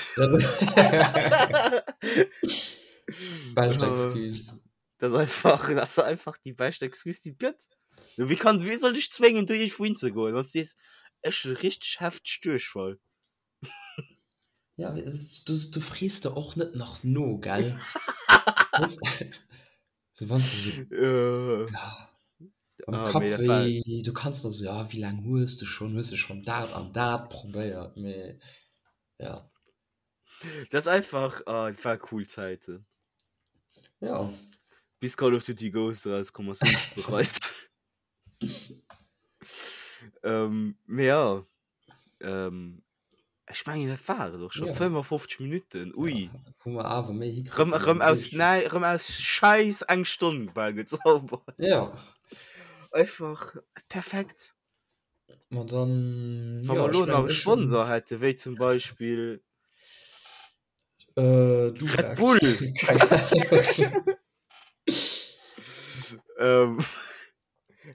Bescht Excuse. Dat ass einfach, dat ass einfach déi bescht Excuse, déi et gëtt. Du, wéi kann, wéi soll dech zwéngen, do iergendwou hinzegoen, wann s du sees, ech hunn richteg hefteg Duerchfall. Ja, du, du frees der och net nach no, gell? So, wann du so, Äh, ja, am ah, Kapp mee dat war, wéi, du kanns da so, ja, wéi laang hues du schon, hues du schon dat an dat probéiert, mee ja. dat ass einfach, ah, dat war cool Zäiten. Ja. Bis Call of Duty Ghosts erauskomm ass, hunn ech bereit. Ähm, mee ja. Ähm, ech mengen dat war et och scho. Ja. 55 Minuten, ui. Ja, hu mer awer méi hikritt Rëm, wéi rëm am aus Duerchschnitt. näi, rëm aus Schäiss eng Stonn bal gezaubert. Ja. Einfach perfekt. Ma dann, Wa ja, mer ech elo nach mengen, e ech hunn. Sponsor hätte wéi zum Beispill Äh, Red Durex. Bull. Keng Ahnung. Ähm,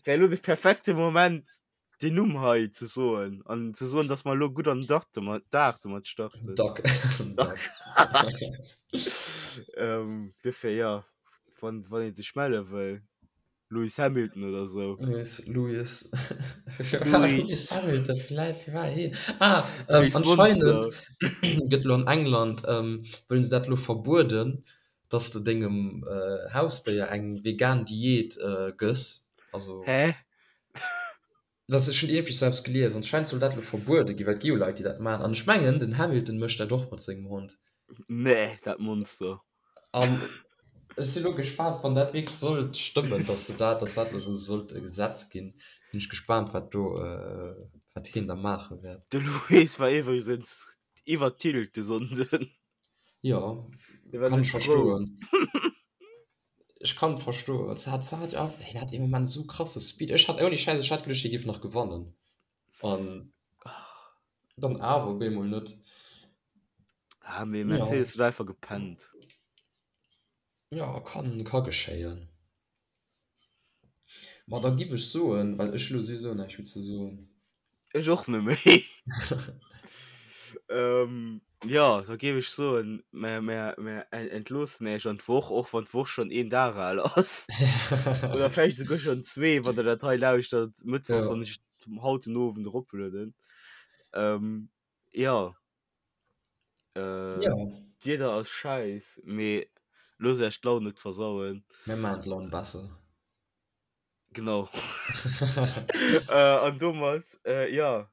wär elo de perfekte Moment den Numm hei ze soen an ze soen, dass mer elo gutt an den Dag domat, Dag domat starten. Dag. Dag. Dag. ähm, duerfir, ja, wann, wann ee sech melle wëll, Lewis Hamilton oder sou. Lewis, Lewis. Lewis. Lewis Hamilton, vläicht, wie war heen? Ah, ähm, Lewis anscheinend Monster. gëtt elo an England, ähm, wëllen se dat elo verbueden, dass de dengem Hausdéier eng vegan Diät gëss. Also. Hä? Dat ech hunn iergendwéi sou eppes gelies. Anscheinend soll dat elo verbuede ginn, well et gi jo Leit, déi dat maachen. An ech mengen, den Hamilton mécht dat och mat sengem Hond. Nee, dat Monster. An ech si lo gespaant, wann dat wierklech sollt stëmmen, dass se dat, dass dat elo sou sollt e Gesetz ginn, sinn ech gespaant, wat do, wat hien da maache wäert. De Lewis war iwwregens iwwer Tilt de Sonnden. Jo, Hie war kann net ech frou. verstoen. Ech kann et verstoen. Se hat, se hat jo, hien hat ee Moment esou krasse Speed. Ech hat ouni Schäiss, ech hat geduecht, hie géif nach gewannen. An dann awer op eemol net. Ah, mee Ja. Mercedes huet einfach gepennt. Ja, kann, ka geschéien. Ma da giff ech soen, well ech elo souwisou näischt méi ze soen. Ech och net méi. Ähm, jo, da géif ech soen, mer, mer, mer entloossen Iech an d'Woch, och wann d'Woch schonn een Dag al ass. Oder vläicht esouguer schonn zwee, wann Der dat hei lauschtert, mëttwochs, Ja. wann ech et haut den Owend eroplueden. Ähm, jo. Äh, Ja. D'Wieder ass schäiss, mee loosst Iech d'Laun net versauen. Mir maachen d'Laun besser. Genau. Äh, an domat, äh, ja,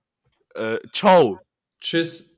äh, ciao! Tschüss!